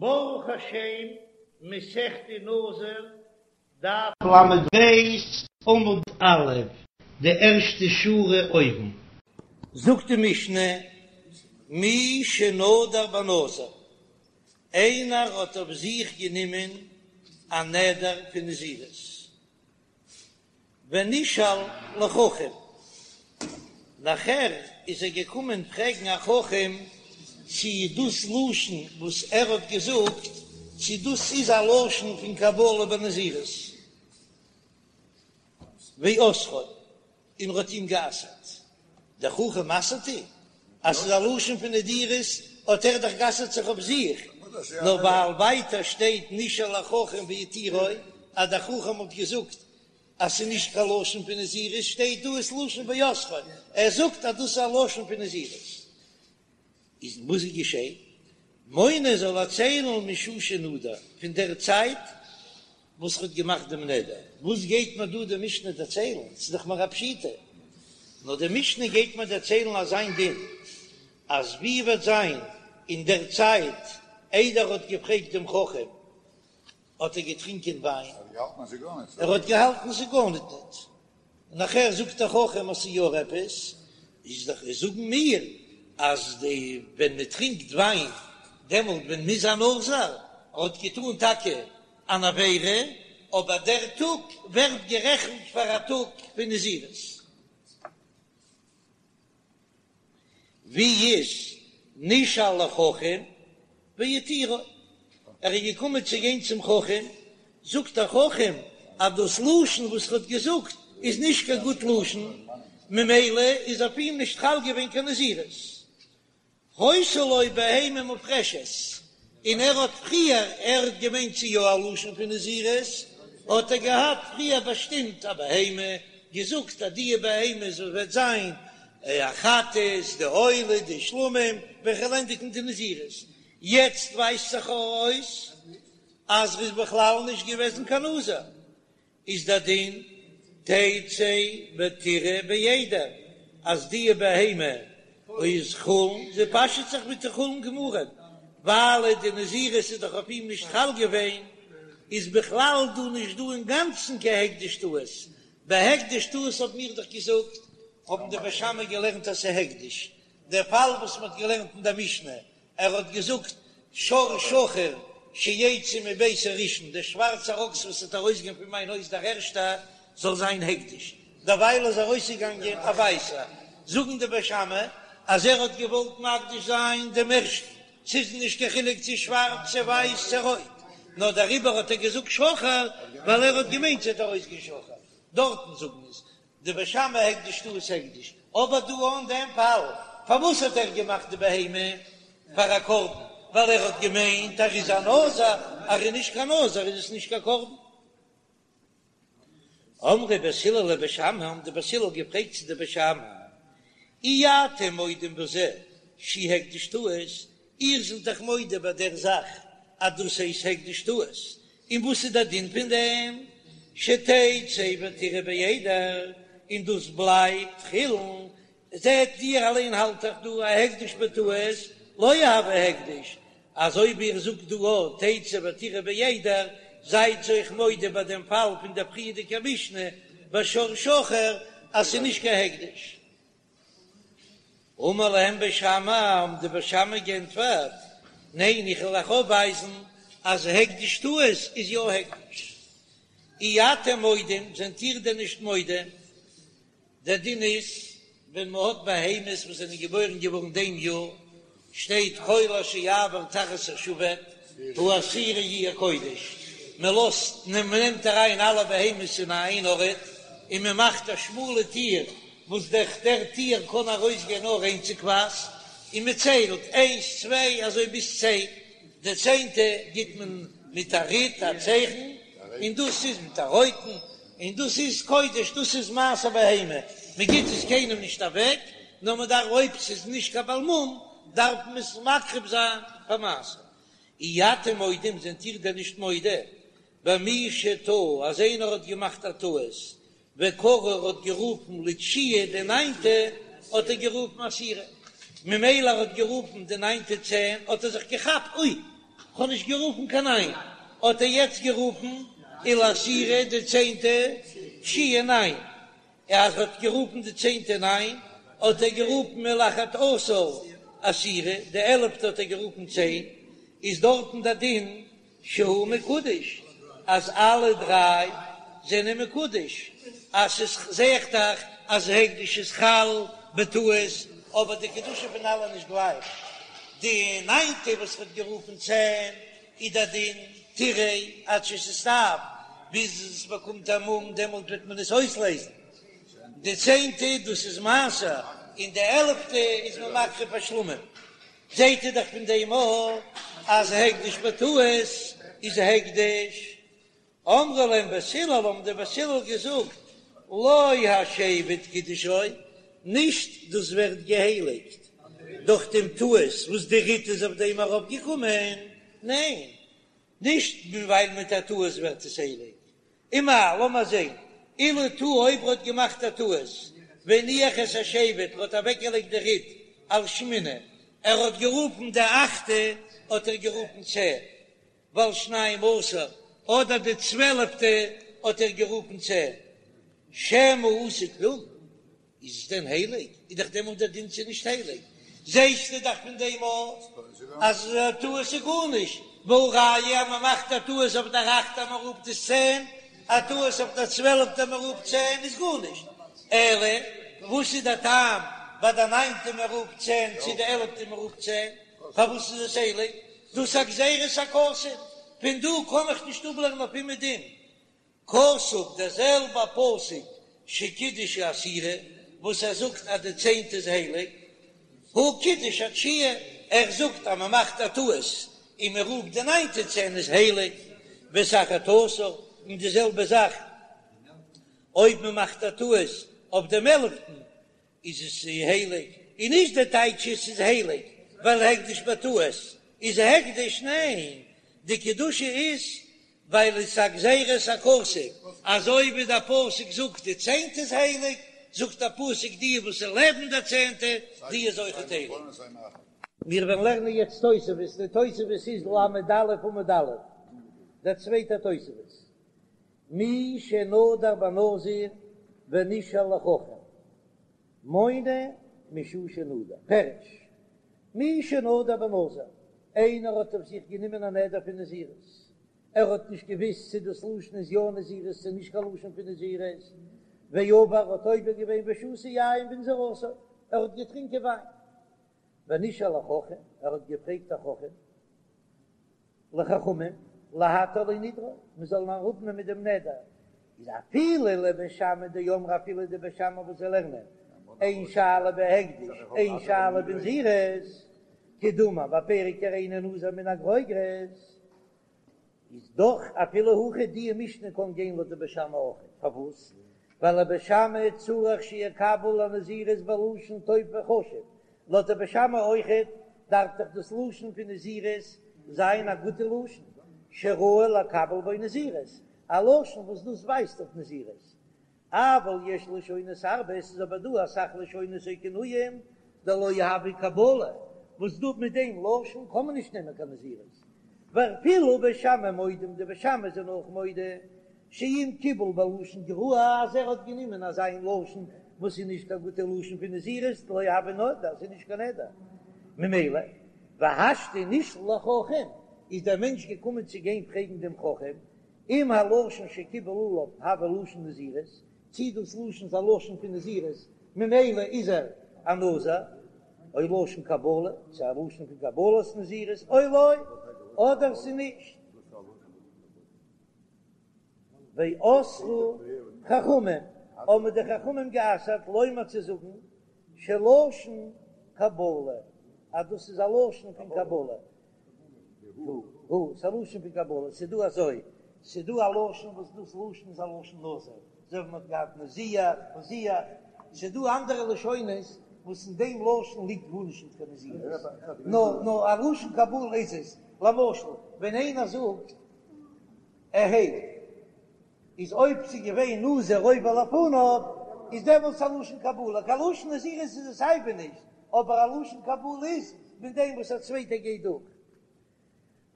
ברוך השם, מסכת נזיר, דף ל"ב, עמוד א', די ערשטע שורה אויבן. זאגט די משנה, מי שנדר בנזיר, איינער האט אויף זיך גענומען א נדר פון נזירות, ונשאל לחכם, נאכער איז ער געקומען פרעגן א חכם צי דאס לשון וואס ער האט געזאגט צי דאס איז א לשון פון קבלה בנזירות, ואסרו, און ער האט אים גע'אסר'ט, דער חכם אסר'ט אים אז ס'איז א לשון פון נדירות, האט ער דאך גע'אסר'ט זיך אויף זיך, נאר ווייל ווייטער שטייט נשאל לחכם והתירו, אז דער חכם האט געזאגט אז ס'איז נישט קיין לשון פון נזירות, שטייט דא עס לשון ואסרו, ער זאגט אז דאס איז א לשון פון נזירות. איז וואס איז געשען? מונה זאל ער ציילן משעה שנדר, פון דער צייט וואס ער האט געמאכט דעם נדר. וואס גייט מיר דא די משנה דערציילן? ס'איז דאך מיר א פשיטא. נאר די משנה גייט מיר דערציילן אזיין דין, אז ווי וועט זיין אין דער צייט איידער ער האט געפרעגט דעם חכם, האט ער געטרינקען וויין, ער האט געהאלטן ס'איז גארניט ניט, און נאכער זאגט דער חכם אז ס'איז יא עפעס, איז דאך זאגן מיר אז די ווען מען טרינקט וויין דעמאלט ווען מ'איז א נזיר, ער האט געטאן טאקע אן עבירה, אבער דער טאג ווערט גערעכנט פאר א טאג פון נזירות. ווי איז נשאל לחכם והתירו, ער איז געקומען צו גיין צום חכם, זאגט דער חכם אז דאס לשון וואס ער האט געזאגט איז נישט קיין גוט לשון, ממילא איז אויף אים נישט חל געווען קיין נזירות. היתה לו בהמה מופרשת, און ער האט פריער, ער האט געמיינט ס'איז יא א לשון פון נזירות, האט ער געהאט פריער באשטימט א בהמה, געזאגט אז די בהמה זאל וועט זיין א חטאת, די עולה, די שלמים, ווען כ'וועל ענדיגן די נזירות. יעצט ווייזט זיך אויס אז ר'איז בכלל נישט געוועזן קיין נזיר, איז דער דין תצא ותרעה בעדר אז די בהמה איז חולין, זי פאשעט זיך מיט די חולין גמורים, ווייל די נזירות איז דאך אויף אים נישט חל געווען, איז בכלל דא נישט דא אינגאנצן קיין הקדש טעות, ביי הקדש טעות האבן מיר דאך געזאגט, האבן די בית שמאי געלערנט אז ס'איז הקדש, דער פאל וואס מ'האט געלערנט אין דער משנה ער האט געזאגט שור שחור שיצא מביתי ראשון, דער שווארצער אקס וואס וועט ארויסגיין פון מיין הויז דער ערשטער זאל זיין הקדש, דערווייל איז ארויסגעגאנגען א ווייסער, זאגן די בית שמאי אז ער האט געוואלט מקדיש זיין דעם ערשטן, ס'איז נישט קיין חילוק צו שווארץ צו ווייס צו רויט, נאר דעריבער האט ער געזאגט שחור ווייל ער האט געמיינט ס'וועט ארויסגיין שחור, דארטן זאגן עס די בית שמאי הקדש טעות הקדש, אבער דא אין דעם פאל, פארוואס האט ער געמאכט די בהמה פאר א קרבן? ווייל ער האט געמיינט ער איז א נזיר, אז ער איז נישט קיין נזיר איז עס נישט קיין קרבן. אמרו בית הלל לבית שמאי, האבן די בית הלל געפרעגט צו די בית שמאי, אי אתם מודים בזה שהוא הקדש טעות, איר זענט דאך מודה ביי דער זאך אז דאס הייסט הקדש טעות, און וואס איז דער דין פון דעם? שתצא ותרעה בעדר, און דאס בלייבט חולין, זעט איר אליין האלט דאך דא א הקדש בטעות לא הוי הקדש, אז אויב איר זאגט דא א תצא ותרעה בעדר, זייט אויך מודה ביי דעם פאל פון דער פריערדיגער משנה ביי שור שחור אז ס'איז נישט קיין הקדש. אמר להם בית שמאי, האבן די בית שמאי גענטפערט, ניין, איך וועל אייך אויפווייזן אז הקדש טעות איז יא הקדש. אי אתם מודים, זענט איר דען נישט מודה? דער דין איז, ווען מען האט בהמות וואס זענען געבוירן געווארן דעם יאר, שטייט כל אשר יעבור תחת השבט העשירי יהיה קודש, מען לאזט, מען נעמט אריין אלע בהמות אין איין ארט, און מען מאכט א שמאלע טיר וואס דורך דער טיר קען ארויסגיין נאר איינציגווייז, און מען ציילט איינס צוויי אזוי ביז צען, די צענטע גיט מען מיט א ריט א צייכן, און דאס איז מיט א רויטן, און דאס איז קודש, דאס איז מעשר בהמה, מען גיט עס קיינעם נישט אוועק, נאר מען דארף אויב ס'איז נישט קיין בעל מום דארף מען עס מקריב זיין פאר מעשר. אי אתם מודים, זענט איר דען נישט מודה במי שטעה אז איינער האט געמאכט א טעות וקרא ער האט גערופן לתשיעי די ניינטע האט ער גערופן עשירי ממילא ער האט גערופן די ניינטע צען האט ער זיך געכאפט אוי! כ'האב נישט גערופן קיין ניין, האט ער יעצט גערופן ולעשירי די צענטע תשיעי ניין, אז ער האט גערופן די צענטע ניין, האט ער גערופן ולאחד עשר עשירי, די עלעפטע האט ער גערופן צען, איז דארטן די דין שהוא מקודש אז אלע דריי זענען מקודש, אז ס'איז זעהט דאך אז הקדש איז חל בטעות, אבער די קדושה פון אלע נישט גלייך, די ניינטע וואס ווערט גערופן צען איז די דין תרעה עד שתסתאב, ביז עס באקומט א מום דעמאלט וועט מען עס אויסלעזן, די צענטע דאס איז מעשר, און די עלעפטע איז מען מקריב א שלמים. זעהט איר דאך פון דעם אויך אז הקדש בטעות איז הקדש. אמרו להם בית הלל האבן די בית הלל געזאגט לא השבט קידשו, נישט דאס ווערט געהייליגט דורך דעם טעות וואס די ריט איז אויף דעם ארויפגעקומען, ניין, נישט ווייל מיט א טעות ווערט עס הייליג, ומאי, לאמיר זעהן, אילו טעה אויב ער האט געמאכט א טעות, והניח את השבט, ער האט אוועקגעלייגט די ריט על שמיני, ער האט גערופן די אכטע האט ער גערופן צען, ועל שנים עשר, אדער די צוועלעפטע האט ער גערופן צען, שמא עשה כלום, איז עס דען הייליג? איז דאך דעמאלט דער דין ס'איז נישט הייליג. זעסטו דאך פון דעם אויך אז א טעות איז גארנישט, והא ראיה אז מען מאכט א טעות אויף דער אכטער מען רופט עס צען, א טעות אויף דער צוועלפטער מען רופט צען איז גארנישט. אלא וואס איז דער טעם ביי די ניינטע מען רופט צען צו די עלפטע מען רופט צען? פארוואס איז עס הייליג? דאס איז א גזירת הכתוב, פון דא קען איך נישט אפלערנען אויף אומעדום. כתוב דער זעלבע פסוק שקידש העשירי וואס ער זאגט אז די צענטע איז הייליג, הוא קידש התשיעי, ער זאגט אז מען מאכט א טעות און מען רופט די ניינטע צען איז הייליג, ואת האחד עשר, און די זעלבע זאך אויב מען מאכט א טעות אויף דעם עלפטן איז עס הייליג, און נישט די טייטש עס איז הייליג ווייל הקדש בטעות איז הקדש, ניין, די קדושה איז ווייל עס איז א גזירת הכתוב, אזוי ווי דער פסוק זאגט די צענטע איז הייליג, זאגט דער פסוק די וואס איז לעבן דער צענטע די איז אויכעט הייליג. מיר וועלן לערנען יעצט תוספות, די תוספות איז ל"א עמוד א', דער צווייטער תוספות, מי שנדר בנזיר ונשאל לחכם מונה משעה שנדר, פירוש, מי שנדר בנזיר, איינער האט אויף זיך גענומען א נדר פון נזירות, ער האט נישט געוויסט צו דאס לשון איז יא נזירות צו נישט קיין לשון פון נזירות, ועבר האט עובר געווען ושתה יין בנזירותו, ער האט געטרינקען וויין, ונשאל לחכם, ער האט געפרעגט א חכם, לחכמים, להתיר לו נדרו, מען זאל אים אראפנעמען דעם נדר, איז אפילו לבית שמאי דאמרי אפילו די בית שמאי וואס זיי לערנען אין שאלה בהקדש אין שאלה בנזירות, כדאמר בפרק הריני נזיר מן הגרוגרות, איז דאך אפילו הכי די משנה קען גיין לויט די בית שמאי אויך, פארוואס? ווייל לבית שמאי צריך שיקבל הנזירות בלשון טוב וחשוב, לויט די בית שמאי אויכעט דארף דאך דאס לשון פון נזירות זיין א גוטע לשון, שראוי לקבל בו נזירות, א לשון וואס דאס ווייזט אויף נזירות. אבל יש לשונות הרבה, עס איז אבער דא אסאך לשונות או כינויים דלא הוי קבלה, וואס דא מיט דעם לשון קען מען נישט נעמען קיין נזירות, ואפילו בית שמאי מודים, די בית שמאי זענען אויך מודה שאם קיבל בלשון גרוע אז ער האט גענומען אזא מין לשון וואס איז נישט קיין גוטע לשון פון נזירות לא הוי נדר, ס'איז נישט קיין נדר ממילא והשתא נשאל לחכם איז דער מענטש געקומען צו גיין פרעגן דעם חכם אם הלשון שקיבל עליו הוי לשון נזירות, צי דאס לשון איז א לשון פון נזירות ממילא איז ער א נזיר, או לשון קבלה, צו א לשון פון קבלת נזירות או לא, אדער ס'איז נישט. ואסרו חכמים, האבן די חכמים גע'אסר'ט לומר צו זאגן שלשון קבלה, אז דאס איז א לשון פון קבלה, הוא, ס'איז א לשון פון קבלה, ס'איז דא אזוי, ס'איז דא א לשון וואס דאס לשון איז א לשון נזיר, אזוי ווי מ'האט געהאט נזיח, מזיח, ס'איז דא אנדערע לשונות וואס אין דעם לשון ליגט גארנישט נישט קיין נזירות, נאר נאר א לשון קבלה איז עס, למשל ווען איינער זאגט אהא איז אויב ס'איז געווען נזיר עובר לפניו איז דעמאלטס א לשון קבלה, קיין לשון נזירות איז עס סייווי נישט, אבער א לשון קבלה איז מיט דעם וואס א צווייטער גייט דורך.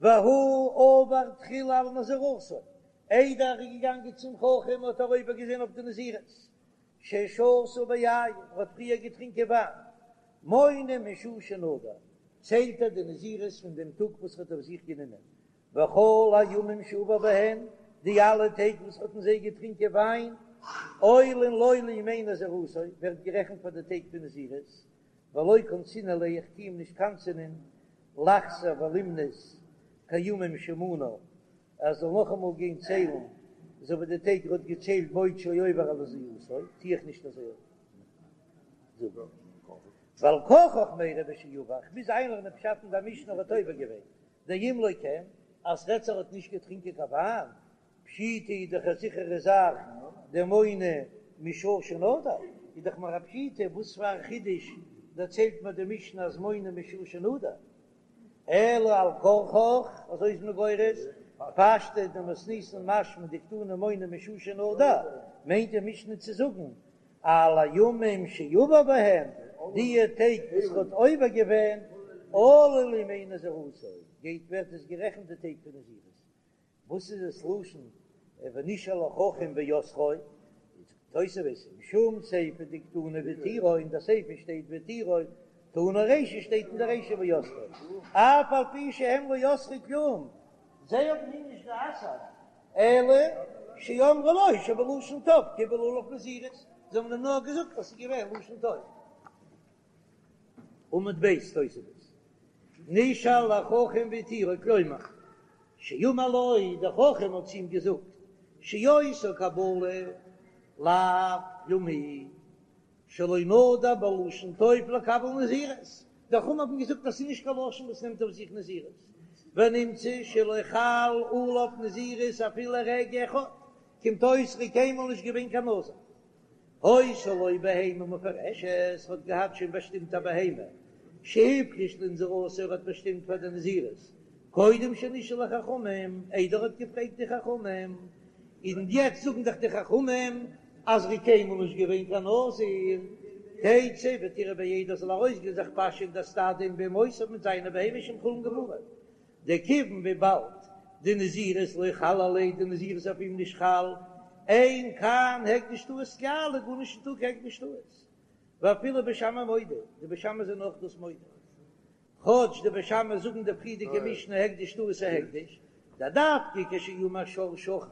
והוא עבר תחילה על נזירותו, איידער ער איז געגאנגען צום חכם האט ער עובר געווען אויף די נזירות, ששתה ביין, ער האט פריער געטרינקען וויין, מונה משעה שנדר, ציילט ער די נזירות פון דעם טאג וואס ער האט אויף זיך גענומען, וכל הימים שעבר בהן, די אלע טעג וואס ער האט אין זיי געטרינקען וויין, עולין לו לימי נזירותו, ווערט גערעכנט פאר די טעג פון נזירות, ולא קנסינן ליה, איך טו אים נישט קנס'ענען, לחזור ולמנות כימים שמנה, ער זאל נאכאמאל גיין ציילן אזוי ווי די טעג ער האט געציילט בעוד שהוא עובר על נזירותו, טו איך נישט אזוי זאגן. ועל כרחך מיירי בשעבר, כ'מוז איינלערנען פשט אין דער משנה ער האט עובר געווען, דאם לא כן, אז ס'רעדט זיך ער האט נישט געטרינקען קיין וויין, פשיטא איז דאך א זיכערע זאך דמונה משעה שנדר, איז דאך מיר א פשיטא, וואס פאר א חידוש דערציילט מיר די משנה אז מונה משעה שנדר? אלא על כרחך, אזוי איז מען גורס, פשטא דמתניתין משמע דקתני מונה משעה שנדר, מיינט די משנה צו זאגן על הימים שעבר בהם, די טעג וואס ער האט עובר געווען, עלו לימי נזירותו, גייט ווערט עס גערעכנט די טעג פון נזירות, וואס איז עס לשון ונשאל לחכם ואסרו? זאגט תוספות משום סיפא דקתני והתירו, אין די סיפא שטייט והתירו, תנא רישא שטייט אין די רישא ואסרו, אף על פי שהם לא אסרו כלום, זיי האבן אים נישט גע'אסר'ט, אלא שאמרו לו שבלשון טוב קיבל עליו נזירות, זיי האבן אים נאר געזאגט אז ס'איז געווען לשון טוב. עמוד ב' תוספות, נשאל לחכם והתירו, כלומר, שאמר לו, דער חכם האט צו אים געזאגט, שאותה קבלה לאו כלום היא, שלא נדר בלשון טוב לקבל נזירות, די חכמים האבן געזאגט אז ס'איז נישט קיין לשון וואס נעמט אויף זיך נזירות, ונמצא שלא חל עליו נזירות אפילו רגע אחד, קומט אויס ר'איז קיינמאל נישט געווען קיין נזיר. היתה לו בהמה מופרשת, האט געהאט שוין באשטימט א בהמה, שהפריש לנזירותו, ער האט באשטימט פאר די נזירות, קודם שנשאל לחכמים, איידער ער האט געפרעגט די חכמים, און יעצט זאגן דאך די חכמים אז ר'איז קיינמאל נישט געווען קיין נזיר, תצא ותרעה בעדר זאל ארויסגיין זיך פאשען אין די סטאדע עם בהמותיו מיט זיינע בהמות שהם חולין גמורים, דכיון וויבאלד דנזירות לא חל עליה די נזירות איז אויף אים נישט חל, אין כאן הקדש טעות כלל איז גארנישט ניטא קיין הקדש טעות, ואפילו בית שמאי מודו, די בית שמאי זענען אויך דאס מודה, כאטש די בית שמאי זאגן די פריערדיגע משנה הקדש טעות איז הקדש, דדווקא כשאמר שור שחור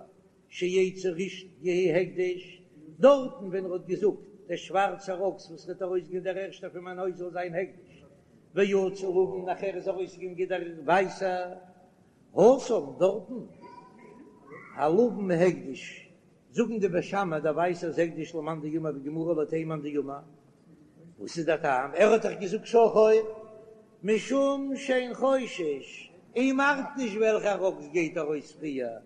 שיצא ראשון יהא הקדש, דארטן ווען ער האט געזאגט דער שווארצער אקס וואס וועט ארויסגיין דער ערשטער פון מיין הויז זאל זיין הקדש, ויצא לבן נאכער איז ארויסגעגאנגען דער ווייסער, התם דארטן הלבן הקדש, זאגן די בית שמאי דער ווייסער איז הקדש למאן דאמר בגמרא לויט איין מאן דאמר, וואס איז דער טעם? ער האט דאך געזאגט שחור משום שאין חושש, אים ארט נישט וועלכער אקס גייט ארויס פריער,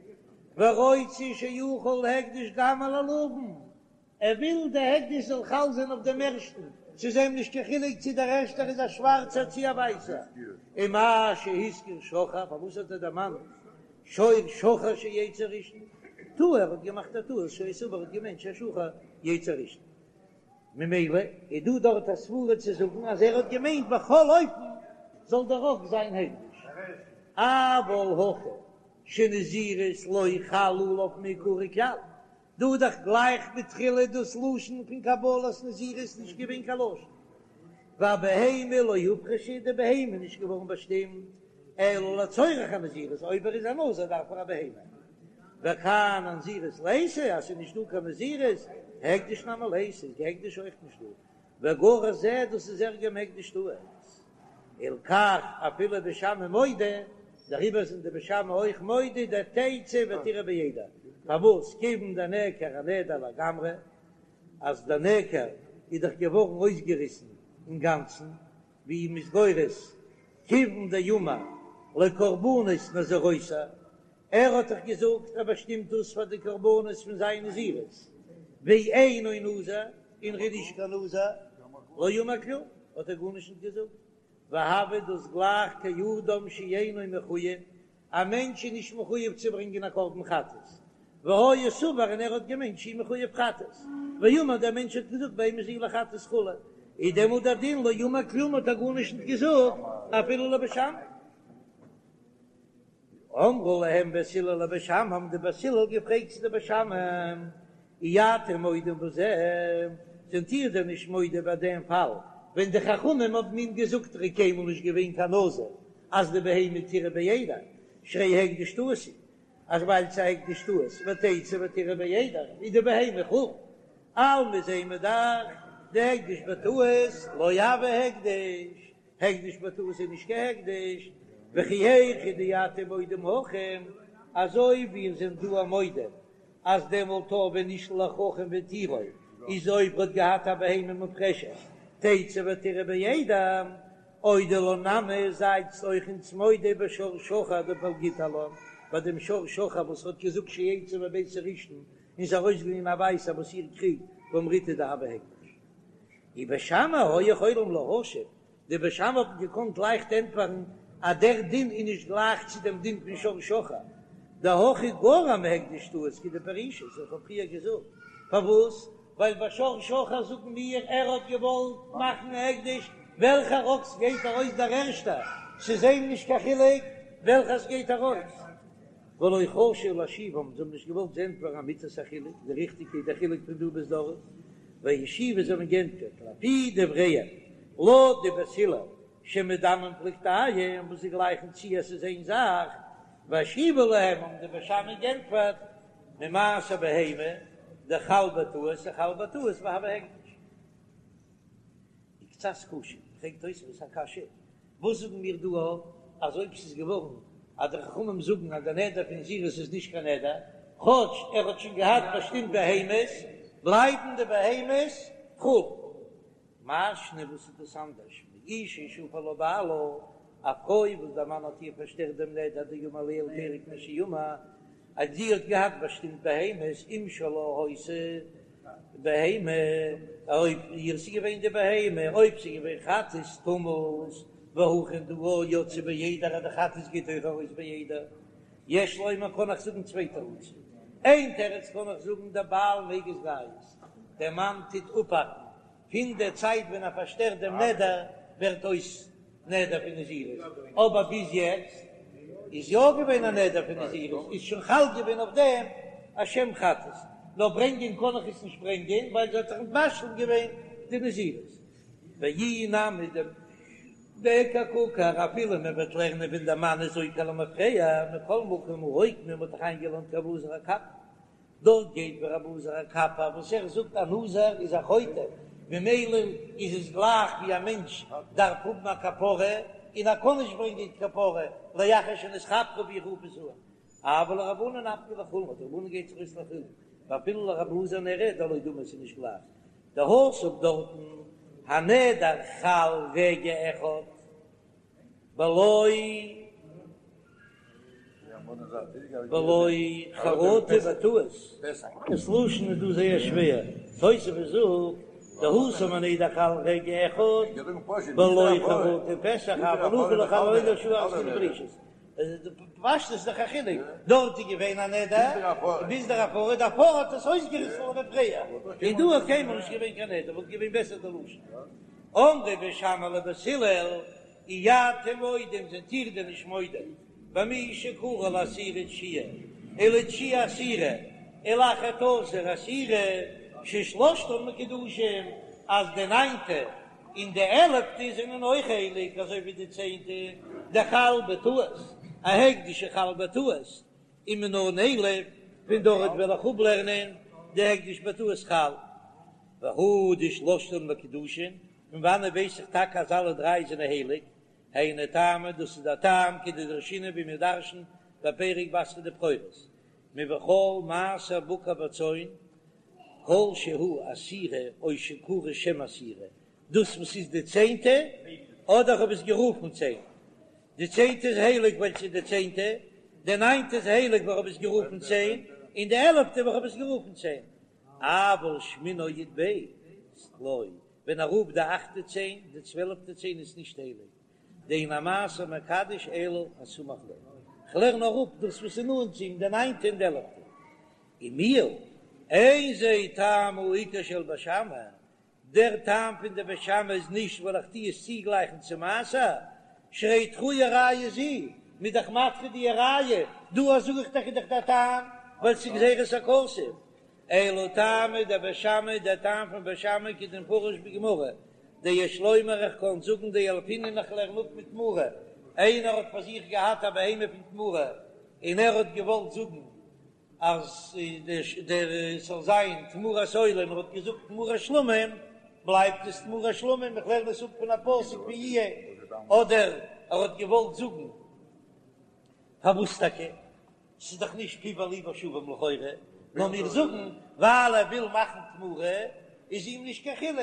ורוצה שיחול הקדש גם על הלבן, ער וויל די הקדש זאל חל זיין אויף דעם ערשטן, ס'איז אים נישט קיין חילוק צי דער ערשטער איז א שווארצער צי א ווייסער, ומה שהזכיר שחור, פארוואס האט ער דערמאנט שור שחור שיצא ראשון, טעה, ער האט געמאכט א טעות, שהיה סבור האט געמיינט שהשחור יצא ראשון. ממילא איז דא דארט א סברה צו זאגן אז ער האט געמיינט בכל אופן זאל דער אקס זיין הקדש, אבל הכא שנזירות לא חל עליו מעיקרא כלל, דא איז דאך גלייך מתחילה דאס לשון פון קבלת נזירות נישט געווען קיין לשון, והבהמה לא הופרשה די בהמה איז נישט געווארן באשטימט אלא לצורך הנזירות, אויב ער איז א נזיר דארף ער א בהמה, וכאן הנזירות ליתא אז ס'איז נישט דא קיין נזירות, הקדש נמי ליתא איז די הקדש אויך נישט דא, וגרע זה דאס איז ערגער מהקדש טעות, הלכך אפילו בית שמאי מודו, דעריבער זענען די בית שמאי אויך מודה דתצא ותרעה בעדר, פארוואס כיוון דנעקר הנדר לגמרי, אז דער נעקר איז דאך געווארן אויסגעריסן אינגאנצן, ווי מ'איז גורס כיוון דאמר לקרבנות נזירותו, ער האט דאך געזאגט ער באשטימט דאס פאר די קרבנות פון זיין נזירות, ואינו נזיר, און ער איז נישט קיין נזיר, לא אמר כלום, האט ער גארנישט נישט געזאגט, והוי דאס גלייך כאדם שאינו מחויב, א מענטש איז נישט מחויב צו ברענגען א קרבן חטאת, והיה סבור און ער האט געמיינט שהוא מחויב חטאת, ואמר דער מענטש האט געזאגט בהמה זו לחטאת כו', איז דעמאלט דער דין לא אמר כלום האט ער גארנישט נישט געזאגט אפילו לבית שמאי. אמרו להם בית הלל לבית שמאי, האבן די בית הלל געפרעגט צו די בית שמאי, אי אתם מודים בזה, זענט איר דען נישט מודה ביי דעם פאל ווען די חכמים האבן אים געזאגט ער איז קיינמאל נישט געווען קיין נזיר אז די בהמה תרעה בעדר שהרי הקדש טעות הוא, אז ווייל ס'איז א הקדש טעות ותצא ותרעה בעדר איז די בהמה חולין, אלמא זעען מיר דאך דהקדש בטעות לא הוי הקדש. הקדש בטעות איז נישט קיין הקדש, וכי היכי דאתם מודים הכא, אזוי ווי איר זענט דא מודה אז דעמאלט ווען נשאל לחכם והתירו איז אויב ער האט געהאט א בהמה מופרשת תצא ותרעה בעדר, אודו לן נמי זייטס אויך אונז מודה בשור שחור דפלגיתא עלן, ביי דעם שור שחור וואס האט געזאגט שיצא מבית הראשון און איז ארויסגעגאנגען א ווייסער וואס איר קריגט ואמריתו דהוי הקדש. ובית שמאי היו יכולים להשיב, די בית שמאי האבן געקאנט לייכט ענטפערן אז דער דין איז נישט גלייך צו דעם דין פון שור שחור, דהכא גרע מהקדש טעות כדפרישית, איך האב פריער געזאגט פארוואס, ווייל ביי שור שחור זאגן מיר ער האט געוואלט מאכן א הקדש, וועלכער אקס גייט ארויס דער ערשטער, ס'איז אים נישט קיין חילוק וועלכער ס'גייט ארויס. ולא חשו להשיבם, זיי האבן נישט געוואלט זיי ענטפערן אמיתת החילוק, די ריכטיגע איז דער חילוק פון דא ביז דארט, והשיבו זיי האבן געענטפערט לפי דבריהם, לויט די בית הלל שמדמים פלוגתייהו וואס זיי גלייכן צו אז ס'איז איין זאך, והשיבו להם האבן די בית שמאי געענטפערט ממעשר בהמה דחל בטעות וחל בטעות והוי הקדש. וקצת קשה, פרעגט תוספות א קשיא, וואס זאגן מיר דא אז אויב ס'איז געווארן אז די חכמים זאגן אז די נדר פון נזירות איז נישט קיין נדר, כאטש ער האט שוין געהאט באשטימט בהמות, בלייבן די בהמות חול. מאי שנא וואס איז דאס אנדערש מאשה שהפר לה בעלה, א פרוי וואס דער מאן האט איר פארשטערט דעם נדר דאמר עליה לפרק מה שאמר, אז זי האט געהאט באשטימט בהמות אם שלה היתה בהמה, אויב איר ס'איז געווען די בהמה, אויב ס'איז געווען חטאת תמות, והכא דא יצאה בעדר אז די חטאת גייט אויך ארויס בעדר, יש לומר קען איך זאגן צוויי תירוצים, איין תירוץ קען איך זאגן דבעל מיגז גייז, דער מאן טוט אפהאקן פון דער צייט ווען ער פארשטערט דעם נדר ווערט אויס נדר פון נזירות, אבער ביז יעצט איז יא געווען א נדר פון נזירות, איז שוין חל געווען אויף דעם א שם חטאת, נאר ברענגען קען איך עס נישט ברענגען ווייל זי האט זיך משלים געווען די נזירות. ואי נמי דאיכא קא עקר אפילו מען וועט לערנען ווען דער מאן איז עוקר למפרע, מכל מקום הא אוקמה, מען האט דאך איינגעלערנט כרבי אלעזר הקפר, דארט גייט ווי רבי אלעזר הקפר וואס ער זאגט א נזיר איז א חוטא, ממילא איז עס גלייך ווי א מענטש דארף האבן א כפרה און ער קען נישט ברענגען כפרה לאחר שנתכפרו ווי איך רוף עס אן, אבל לרבנן נפקא לחולין, די רבנן גייט זיך אויס לחולין, ואפילו לרבי אלעזר נראה דלא דמי ס'איז נישט גלייך דהתם דארטן הנדר חל רגע אחד. בלא בלא חרטה בטעות, דאס לשון איז דא זייער שווער, תוספות זאגט דהתם הנדר חל רגע אחד בלא חרטה ופסח אבל הכא לא חל הנדר שעה אחת כדפרישית, פשטות איז דאך א חילוק, דארט איז געווען א נדר ביז דער הפרה, די הפרה האט עס אויסגעריסן למפרע, און דא איז קיינמאל נישט געווען קיין נדר, וואלט געווען בעסער די לשון. אמרו בית שמאי לבית הלל, אי אתם מודים זענט איר דען נישט מודה במי שקרא לעשירי תשיעי ולתשיעי עשירי ולאחד עשר עשירי ששלשתן מקודשין אז די ניינטע און די עלעפטע זענען אויך הייליג אזוי ווי די צענטע דחל בטעות א הקדש שחל בטעות ומנא נילף פון דארט וועל איך אפלערנען דהקדש בטעות חל והא דשלשתן מקודשין פון וואנעט ווייס איך טאקע אז אלע דריי זענען הייליג? היינו טעמא, דאס איז דער טעם כדדרשינן ווי מיר דרש'ן בפרק בתרא דבכורות, מבכל מעשר בקר וצאן, כל שהוא עשירי או שקרוי שם עשירי, דאס וואס איז די צענטע, אדער איך האב עס גערופן צען, די צענטע איז הייליג ווייל ס'איז די צענטע, די ניינטע איז הייליג ווייל איך האב עס גערופן צען, און די עלעפטע ווייל איך האב עס גערופן צען. אבל שמיני או י"ב לא, ווען ער רופט די אכטע צען, די צוועלפטע צען איז נישט הייליג, דאין המעשר מקדש אלא הסמוך לו, כ'לערן נאר אפ דאס וואס איז נאנט צו אים, די ניינטע און די עלעפטע. ומיהו, אין זה טעם העיקר של בית שמאי, דער טעם פון די בית שמאי איז נישט ווייל איך טו עס צוגלייכן צו מעשר, שהרי דחויה ראיה זו. מ'איז דאך מדחה די ראיה, דא זאג איך דאך איז דאך דער טעם ווייל ס'איז גזירת הכתוב, אלא טעמא דבית שמאי, דער טעם פון בית שמאי כדמפרש בגמרא, דיש לומר איך קען זאגן דילפינן איך לערן אפ מתמורה, איינער האט פאר זיך געהאט א בהמה פון תמורה און ער האט געוואלט זאגן אז דער ס'זאל זיין תמורת עולה און ער האט געזאגט תמורת שלמים, בלייבט עס תמורת שלמים, איך לערן עס אפ פון א פסוק פון יהיה, אדער ער האט געוואלט זאגן פארוואס טאקע? ס'איז דאך נישט פיו וליבו שווים לכאורה, נאר מיר זאגן ווייל ער וויל מאכן תמורה איז אים נישט קיין חילוק,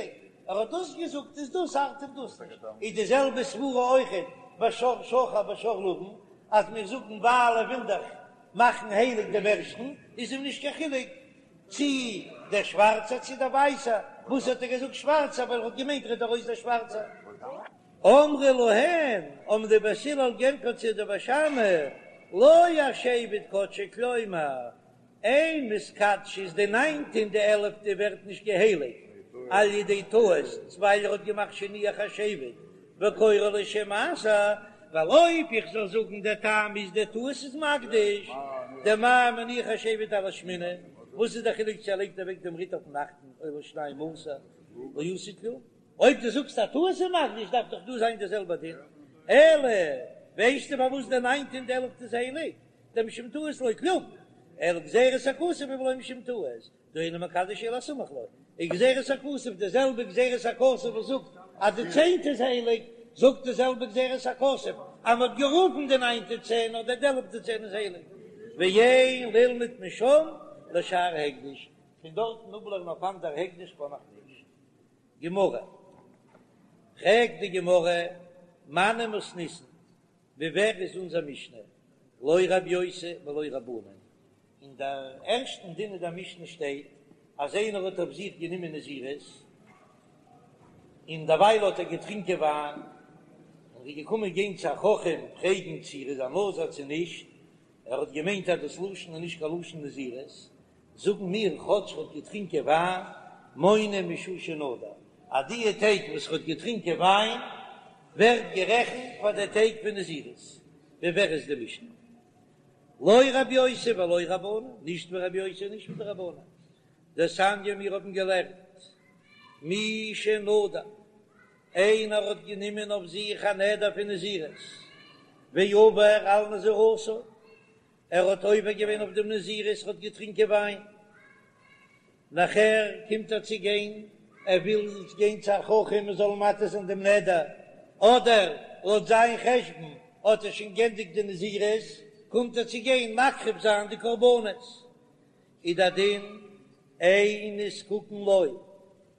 ער האט דאס געזאגט איז דאס ארט אים דאס נישט, איז די זעלבע סברה אויכעט ביי שור שחור בשור לבן, אז מיר זאגן ווייל ער וויל דאך מאכן הייליג דעם ערשטן איז אים נישט קיין חילוק צי דער שווארצער צי דער ווייסער, וואס האט ער געזאגט שווארצער ווייל ער האט געמיינט רעדט ארויס דער שווארצער. אמרו להן, האבן די בית הלל גענטפערט צו די בית שמאי, לא השבט קדשו כלומר, אין מתקדשות די ניינטע און די עלעפטע ווערט נישט געהייליגט על ידי טעות ווייל ער האט געמאכט שהניח השבט וקורא לו שם מעשר, ווייל אויב איך זאל זאגן דער טעם איז דער טעות איז מקדיש דמה מניח השבט על השמיני, וואס איז דער חילוק צו ער לייגט אוועק דעם ריט אויפן אכטן או לשנים עשר לא עשה כלום. אויב דו זאגסט א טעות איז מקדיש דארף דאך דא זיין די זעלבע דין, אלא ווייסטו פארוואס די ניינטע און די עלפטע איז הייליג, דמשום טעות לא כלום, אלא גזירת הכתוב ולא משום טעות, דאינו מקדש אלא הסמוך לו, איז גזירת הכתוב די זעלבע גזירת הכתוב וואס זאגט אז די צענטע איז הייליג, זאגט די זעלבע גזירת הכתוב אז מען האט גערופן די ניינטע צען אדער די עלפטע צען איז הייליג, ואין ללמוד משם לשאר הקדש, פון דארטן אפלערנען אויף אנדער הקדש קען איך נישט. גמרא, פרעגט די גמרא, מני מתניתין, ווי ווער איז אונזער משנה, לא רב יוסי ולא רבנן, אין דער ערשטן דין אין דער משנה שטייט אז איינער האט אויף זיך גענומען נזירות, און דערווייל האט ער געטרינקען וויין, און איז געקומען גיין צו א חכם פרעגן צו ער איז א נזיר צו נישט, ער האט געמיינט אז דאס לשון איז נישט קיין לשון נזירות, זאגן מיר כאטש ר'האט געטרינקען וויין, מונה משעה שנדר, אז דיע טעג וואס ר'האט געטרינקען וויין ווערט גערעכנט פאר די טעג פון נזירות, ווי ווער איז די משנה? לא רבי יוסי ולא רבנן, נישט ווי רבי יוסי און נישט ווי די רבנן, דתניא מיר האבן געלערנט מי שנדר, איינער האט גענומען אויף זיך א נדר פון נזירות, ועבר על נזירותו, ער האט עובר געווען אויף דעם נזירות, ער האט געטרינקען וויין, נאכער קומט ער צו גיין, ער וויל גיין צו א חכם מען זאל מתיר זיין דעם נדר, אדער לויט זיין חשבון האט ער שוין גענדיגט די נזירות, קומט ער צו גיין מקריב זיין די קרבנות, איז דער דין אין נזקקין לו,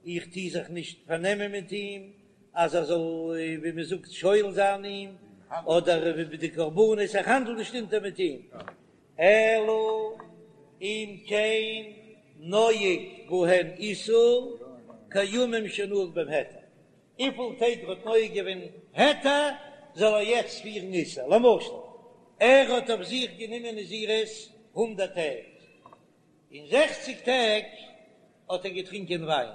איך טוה זיך נישט פארנעמען מיט אים אז ער זאל ווי מען זאגט שואל זיין אים, אדער ווי די קרבנות, איך האנדל נישט אונטער מיט אים, אלא אם כן נוהג בהן איסור כימים שנהג בהם היתר, וויפיל טעג ער האט נוהג געווען היתר זאל ער יעצט פירן איסור, למשל ער האט אויף זיך גענומען נזירות הונדערט טעג, אין זעכציג טעג האט ער געטרינקען וויין,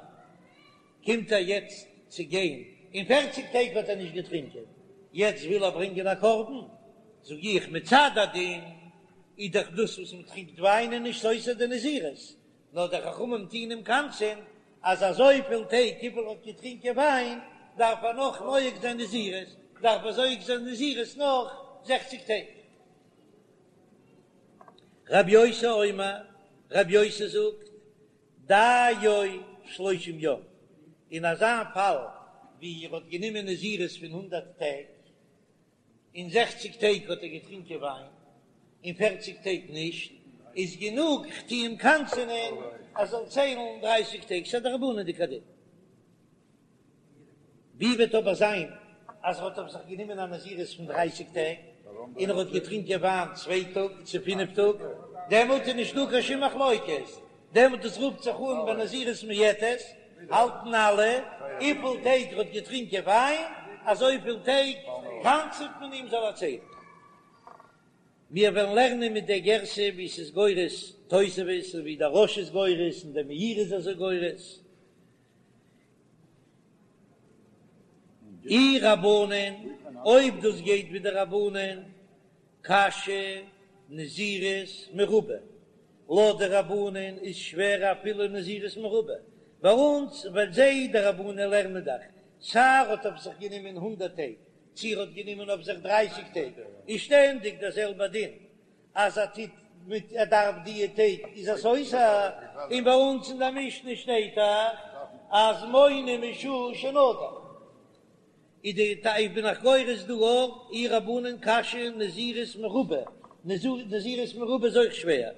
קומט ער יעצט צו גיין, אין פערציג טעג האט ער נישט געטרינקען, יעצט וויל ער ברענגען א קרבן, זאג איך מצד הדין איז דאך דאס וואס מען טרינקט וויין איז נישט סותר די נזירות, נאר די חכמים טוהן אים קנס'ען אז אזויפיל טעג וויפיל ער האט געטרינקען וויין דארף ער נאך נוהג זיין נזירות, דארף ער נוהג זיין נזירות נאך זעכציג טעג. רב יוסי אומר, רב יוסי זאגט, דיו שלושים יום, אין אזא פאל ווי ער האט גענומען נזירות פון הונדערט טעג, אין זעכציג טעג האט ער געטרינקען וויין, אין פערציג טעג נישט, איז גענוג כ'טו אים קנס'ענען ער זאל ציילן דרייסיג טעג, ס'איז א דרבנן'דיגע דין. ווי וועט אבער זיין אז ער האט אויף זיך גענומען א נזירות פון דרייסיג טעג, און ער האט געטרינקען וויין צוויי טאג צו פינף טאג, דעמאלט איז נישטא קיין שום מחלוקת, דעמאלט דאס רופט זיך אן בנזירות מועטת, האלטן אלע, וויפיל טעג ער האט געטרינקען וויין, אזויפיל טעג קנס'עט מען אים זאל ער ציילן. מיר וועלן לערנען מיט דער גירסא ווי ס'איז גורס תוספות און ווי דער רא"ש איז גורס און דער מאירי איז אזוי גורס. אי רבנן, אויב דאס גייט ווי די רבנן. קשיא נזירות מרובה, לויט די רבנן איז שווער אפילו נזירות מרובה, ביי אונז ווייל זיי די רבנן לערנען דאך סיי ער האט אויף זיך גענומען הונדערט טעג צי ער האט גענומען אויף זיך דרייסיג טעג איז שטענדיג דער זעלבער דין אז ער טוט מיט ער דארף דיע טעג איז ער סותר, און ביי אונז אין די משנה שטייט דאך אז מונה משעה שנדר. איז די טייטש בין איך גורס דא אויך אי רבנן קשיא נזירות מרובה, נזירות מרובה איז אויך שווער,